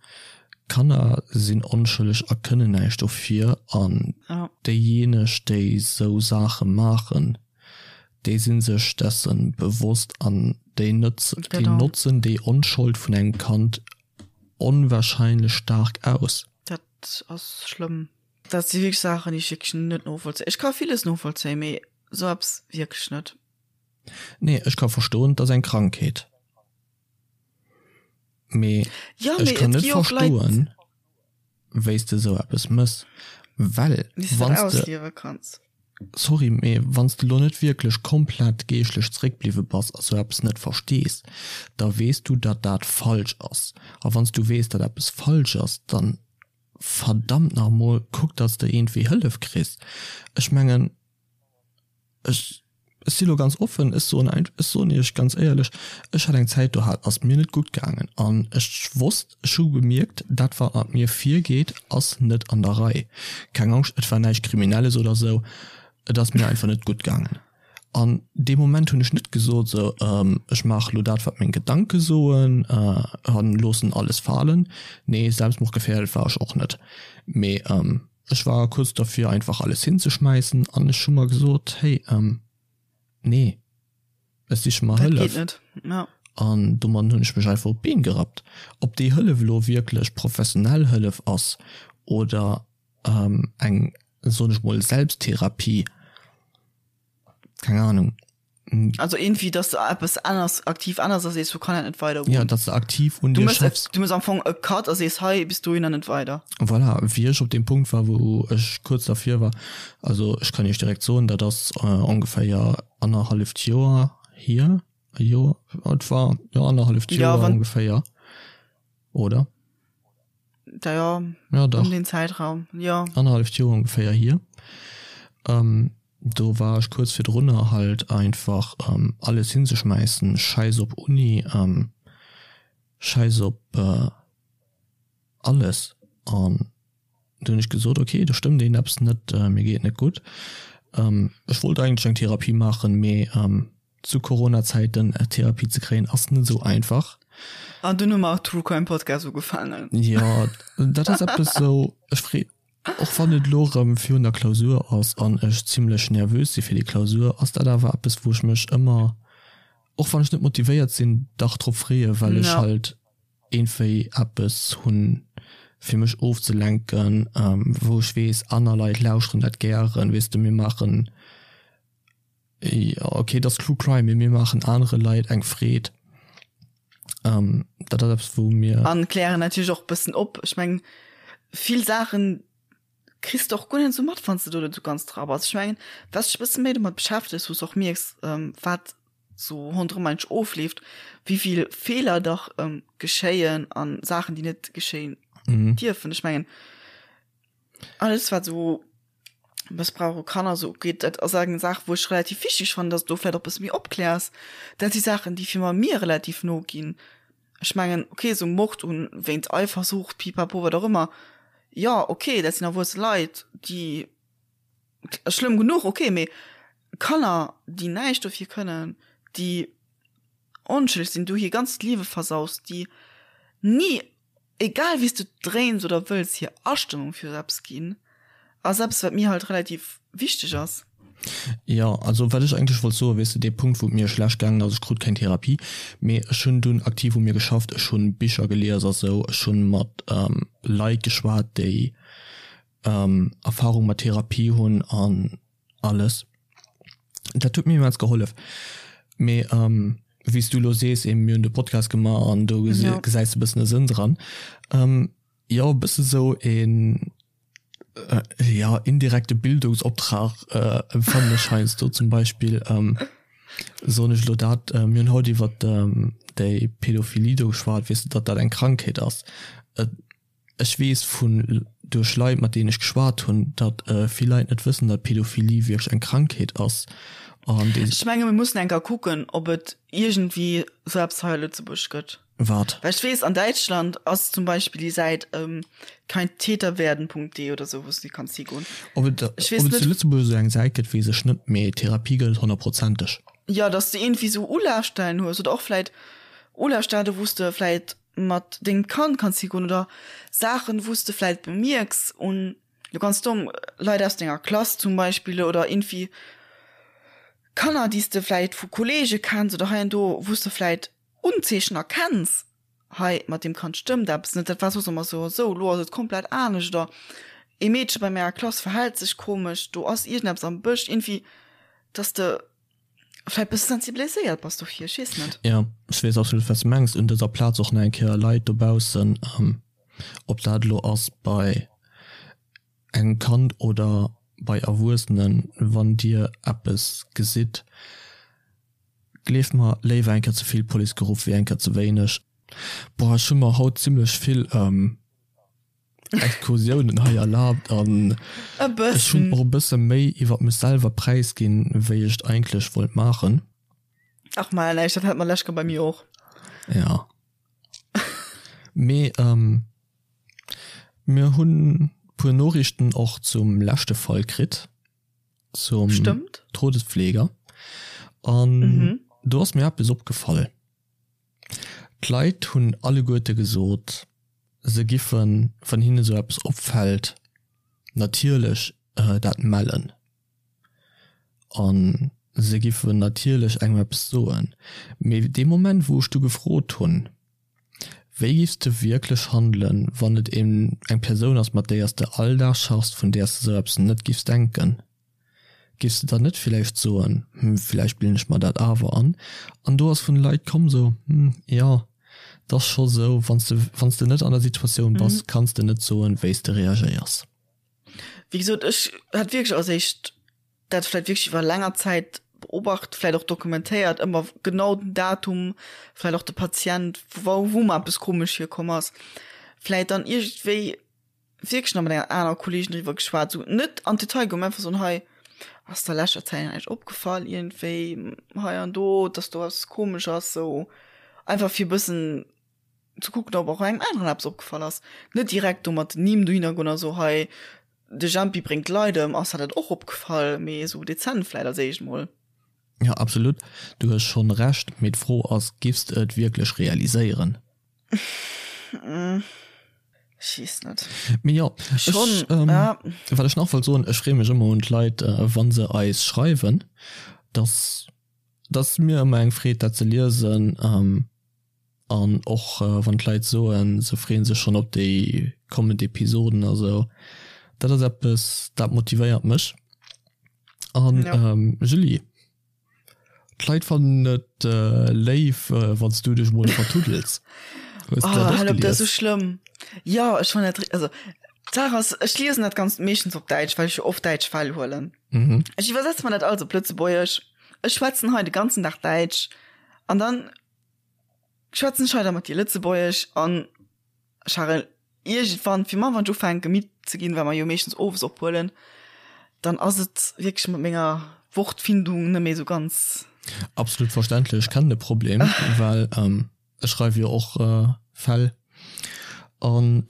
Kanner sinn onschëlleg a kënnen näischt dofir an déijeeneg, déi esou Saache maachen, déi si sech dessen bewosst an déi déi notzen déi Onschold vun engem Kand onwahrscheinlech staark aus. Dat ass schlëmm. Dat si wierklech Saachen, déi ech wierklech net novollzéien. Ech ka villes novollzéien, mee esou eppes wierklech net. Nee, ech ka verstoen, et ass eng Krankheet, mee ech kann net verstoen, wéi s de esou eppes mëss, well wann s de, sorry, mee wann s de lo net wierklech komplett geeschtlech zeréckbliwwe bass a sou eppes net verstees, da weess du, datt dat falsch ass. A wann s du weess, datt eppes falsch ass, dann verdammt nach emol, kuck, datt s de iergendwéi Hëllef kriss. Ech mengen. Ech, ech si lo ganz offen, ech soen ein, ech soen iech ganz éierlech, ech hat eng Zäit do hat ass mir net gutt gaangen an ech wosst, ech hu gemierkt, dat wat mat mir virgeet ass net an der Rei. Keng Angscht, et war näischt Kriminelles oder sou, et ass mir einfach net gutt gaangen. An dee Moment hunn ech net gesot sou, ech maache lo dat wat meng Gedanke soen an loossen alles falen. Nee, selbstmordgefährdet war ech och net, mee Ech war kuerz derfir einfach alles hinzeschmäissen an ech hu mer gesot, hey, nee, ech siche mer Hëllef. An domadden hunn ech mech einfach op d'Been gerappt. Ob déi Hëllef elo wierklech professionell Hëllef ass oder eng, soen ech mol, Selbsttherapie, keng Ahnung. Also irgendwie, dass du eppes ännerst, aktiv ännerst a sees, sou kann dat net weidergoen. Ja, dass du aktiv un dir schaffs. Du mëss am Fong e Cut a sees, hei bis dohinner net weider. Voilà, wéi ech op deem Punkt war, wou ech kuerz dervir war, also ech kann iech direkt soen, dat ass ongeféier annerhalleft Joer hier, e Joer, et war, jo annerhalleft Joer ongeféier, oder? Da jo, ja, dach. Um den Zäitraum, jo. Annerhalleft Joer ongeféier hier. Do war ech kuerz virdrunner halt einfach alles hinzeschmäissen, schäiss op Uni, schäiss op alles. An du hunn ech gesot, ok, do stëmmt iergendeppes net, mir geet et net gutt. Ech wollt eigentlech eng Therapie maachen, mee zu Corona-Zäiten Therapie ze kréien ass net esou einfach. An dunn hu mer och True Crime Podcast ugefaangen. Jo, dat ass eppes esou, ech free, och wann et elo erëm virun der Klausur ass an ech zimlech nervös si fir déi Klausur, ass dat awer eppes wou ech mech ëmmer, och wann ech net motivéiert sinn, dach drop freeë well ech halt iergendwéi eppes hunn fir mech ofzelenken, wou ech weess aner Leit lauschteren dat gären, weess de mir maachen Jo ok, et ass True Crime, mee mir maachen anere Leit eng Freed. Dat ass eppes wou mir. An klären natierlech och bëssen op. Ech mengen vill Saachen kriss de och guer net esou mat, wann s de do net esou ganz dra bass. Ech mengen wat s dech e bësse méi domat beschäftegs, wou s och mierks wat sou ronderëm eigentlech ofleeft, wéi vill Feeler dach geschéien an Saachen déi net geschéien dierfen. Ech mengen alles wat esou Mëssbrauch u Kanner esou ugeet, dat ass eng Saach, wou ech relativ wichteg fannen, dass du do vläicht och e bësse méi opkläers. Dat si Saachen, déi fir mer mir relativ no ginn. Ech mengen, okay, esou Mord un, wéint Eifersucht, pipapo, wat och ëmmer, jo, okay, dat sinn erwuesse Leit, déi, schlëmm genuch, okay, mee Kanner, déi näischt dofir kënnen, déi onschëlleg sinn, du hir ganzt Liewe versaus, déi ni egal wéi s du et dréins oder wëlls, hir Astëmmung fir esou eppes ginn, ass eppes, wat mir halt relativ wichteg ass. Jo, also wat ech eigentlech wollt soen, weess de, dee Punkt, wou et mir schlecht gaangen ass, ech krut keng Therapie, mee ech hunn dunn aktiv u mir geschafft, ech hunn Bicher gelies a sou, ech hunn mat Leit geschwat, déi Erfahrung mat Therapie hunn an alles. Dat huet mir immens gehollef. Mee wéi s du elo sees, eben, mir hunn de Podcast gemaach an do gesäis de e bëssen e Sënn dran. Jo, e bësse sou een, jo, indirekte Bildungsoptrag empfannen ech heiansdo. Zum Beispill soen ech elo dat, mir hunn haut iwwer déi Pädophilie do geschwat, weess de, datt dat eng Krankheet ass. Ech weess vun duerch Leit mat deenen ech geschwat hunn, datt vill Leit net wëssen, datt Pädophilie wierklech eng Krankheet ass an déi. Ech menge mir mussen eng Kéier kucken, ob et iergendwéi esou eppes hei a Lëtzebuerg gëtt. Wat? Well ech weess, an Däitschland ass zum Beispill déi Säit keintäterwerden.de oder esou, wou s du kanns higoen. Ob et Ech weess net. zu Lëtzebuerg esou eng Säit gëtt, weess ech net, mee Therapie gëtt et honnertprozenteg. Jo, datt s de iergendwéi esou Ulafstellen hues oder och vläit Ulafstellen, wou s de vläit mat dengem Kand kanns higoen oder Saachen, wou s de vläit bemierks un, lo ganz domm, Leit aus denger Klass zum Beispill oder iergendwéi Kanner, déi s de vläit vu Kolleege kenns oder hei an do, wou s de vläit Unzeechen erkenns, hei mat deem Kand stëmmt eppes net, dat war soss ëmmer sou a sou, lo ass et komplett anescht oder ee Meedche bei menger Klass verhält sech komesch, do ass iergendeppes am Bësch, iergendwéi, dass de. Vläit bësse sensibiliséiert bass dofir, ech weess net. Jo, ech weess absolut wat s de mengs. Un dëser Plaz och nach eng Kéier Leit dobaussen, ob dat elo ass bei engem Kand oder bei Erwuessenen, wann dir eppes gesitt, gleeft mer, léiwer eng Kéier ze vill Police geruff wéi eng Kéier ze wéineg. Boah, ech hu mer haut zimlech vill Exkursiounen hei erlaabt an ech hunn och e bësse méi iwwer mech selwer präisginn, wéi ech et eigentlech wollt maachen. Ach maja, näischt, dat hat mer lech bei mir och. Ja. Mee mir hunn puer Noriichten och zum leschte Fall kritt, zum Stëmmt. Todespfleger. An do ass mir eppes opgefall. D'Leit hunn alleguerte gesot, se giffen, wann hinne sou eppes opfält, natierlech dat mellen. A se giffen natierlech engem eppes soen. Mee dee Moment, wou ech du gefrot hunn, Wéi giffs de wierklech handelen, wann et eng Persoun ass, mat déier s de all Dag schaffs, vun där s de sou eppes net giffs denken? Giffs de dann net villäicht soen, hm, villäicht bilden ech mer dat awer an? An do ass vun de Leit komm sou, hm, jo, 't ass scho sou, wann s de, wann s de net an der Situatioun bass, kanns de net soen, wéi s de reagéiers. Wéi gesot, ech hat wierklech als éischt dat vläicht wierklech iwwer länger Zäit beobacht, vläicht och dokumentéiert, ëmmer genau den Datum, vläicht och de Patient, wou, wou mer eppes komesch virkomm ass, vläicht dann iergendwéi wierklech nach mat enger aner Kolleegin driwwer geschwat, sou net an d'Detail goen, mä einfach soen, hei. Ass der leschter Zäit näischt opgefall iergendwéi hei an do, dass do eppes komesch ass? Sou einfach fir e bëssen ze kucken, ob och engem aneren eppes opgefall ass. Net direkt do mat den Nimm dohinner goen a so hei de Jempi bréngt d'Leit ëm, ass der dat och opgefall? Mee esou dezent vläit als éischt mol. Jo absolut, du hues schonn Recht, mee d'Fro ass, giffs de et wierklech realiséieren? Ech weess net. Mee jo, ech, wat ech nach wollt soen, ech freeë mech ëmmer un d'Leit, wa se eis schreiwen, dass dass mir ëmmer eng Freed dat ze liesen. An och wann d'Leit soen, se freeën sech schonn op déi kommend Episoden a sou, dat ass eppes, dat motivéiert mech. An Julie, d'Leit fannen et léif, wann s du dech mol vertuddels. Hues du dat och gelies? Dat ass sou schlëmm. Jo, ech fannen dat, also d'Saach ass, ech liesen dat Ganzt meeschtens op Däitsch, well ech jo oft däitsch Fäll huelen. Ech iwwersetze mer dat alles op Lëtzebuergesch. Ech schwätzen hei de ganzen Dag Däitsch an dann schwätzen ech hei da mat dir Lëtzebuergesch an Charel, iergendwann, fir mar wann ech ufänke midd ze ginn, well mer jo meeschtens owes ophuelen, dann ass et wierklech mat menger Wortfindung net méi esou ganz. Absolut verständlech, ech kennen de Problem, well ech schreiwe jo och Fäll an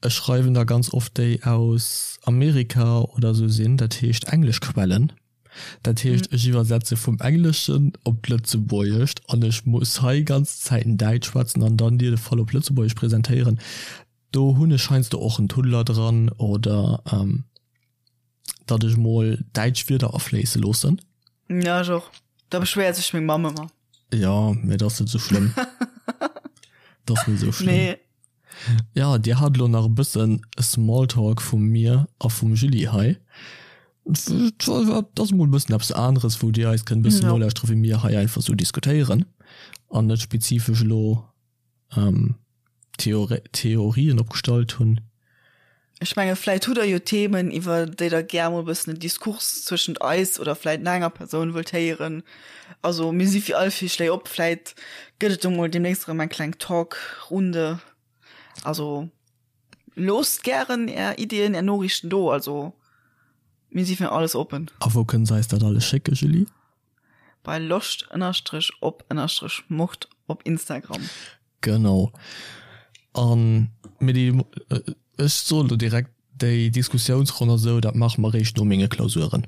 ech schreiwen der ganz oft déi aus Amerika oder esou sinn, dat heescht englesch Quellen. Dat heescht, ech iwwersetze vum Engleschen op d'Lëtzebuergescht an ech muss hei ganz Zäiten Däitsch schwätzen an dann dir de Fall op Lëtzebuergesch presentéieren. Do hunn ech heiansdo och en Tuddler dran oder datt ech mol däitsch Wierder afléisse loossen. Ja, ech och. Da beschwéiert sech meng Mamm ëmmer. Jo, mee dat ass net esou schlëmm. Dat ass net esou schlëmm. Nee. Ja, dir hat elo nach e bëssen Smalltalk vu mir a vum Julie hei. Dat ass mol e bëssen eppes aneres, wou dir eis kënnt e bëssen nolauschteren, wéi mir hei einfach esou diskutéieren an net spezifesch elo Theorien opgestallt hunn. Ech menge vläit hutt der jo Themen, iwwer déi der gär mol e bëssen en Diskurs zwëschent eis oder vläit nach enger Persoun wëllt héieren. Also mir si fir all Virschléi op. Vläit gëtt et do mol deemnächst erëm eng kleng Talkrunde. Also loosst gären är Iddien, är Noriichten do. Also mir si fir alles oppen. A wou kënne se eis dat alles schécken, Julie? Bei loscht ënnerstrech op ënnerstrech mord op Instagram. Genau. An mir déi, ech soen elo direkt, déi Diskussiounsronn a sou, dat maache mer eréischt no menge Klausuren.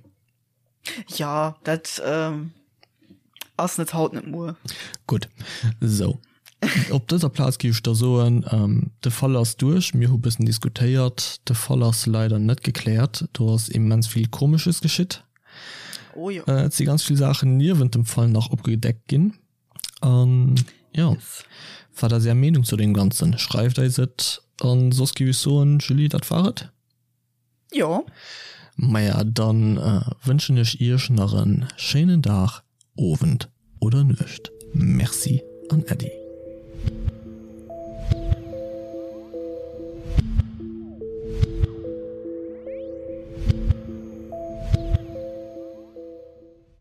Jo, dat ass net haut, net muer. Gutt, sou. Op dëser Plaz géif ech da soen, de Fall ass duerch. Mir hu bëssen diskutéiert. De Fall ass leider net gekläert. Do ass immens vill Komesches geschitt. Oh jo. Et si ganz vill Saachen niewent dem Fall nach opgedeckt ginn. An jo, yes. Wat ass Är Meenung zu deem Ganzen? Schreift eis et. An soss géif ech soen, Julie, dat war et. Jo. Maja, dann wënschen ech Iech nach en schéinen Dag, Owend oder Nuecht. Merci an Äddi.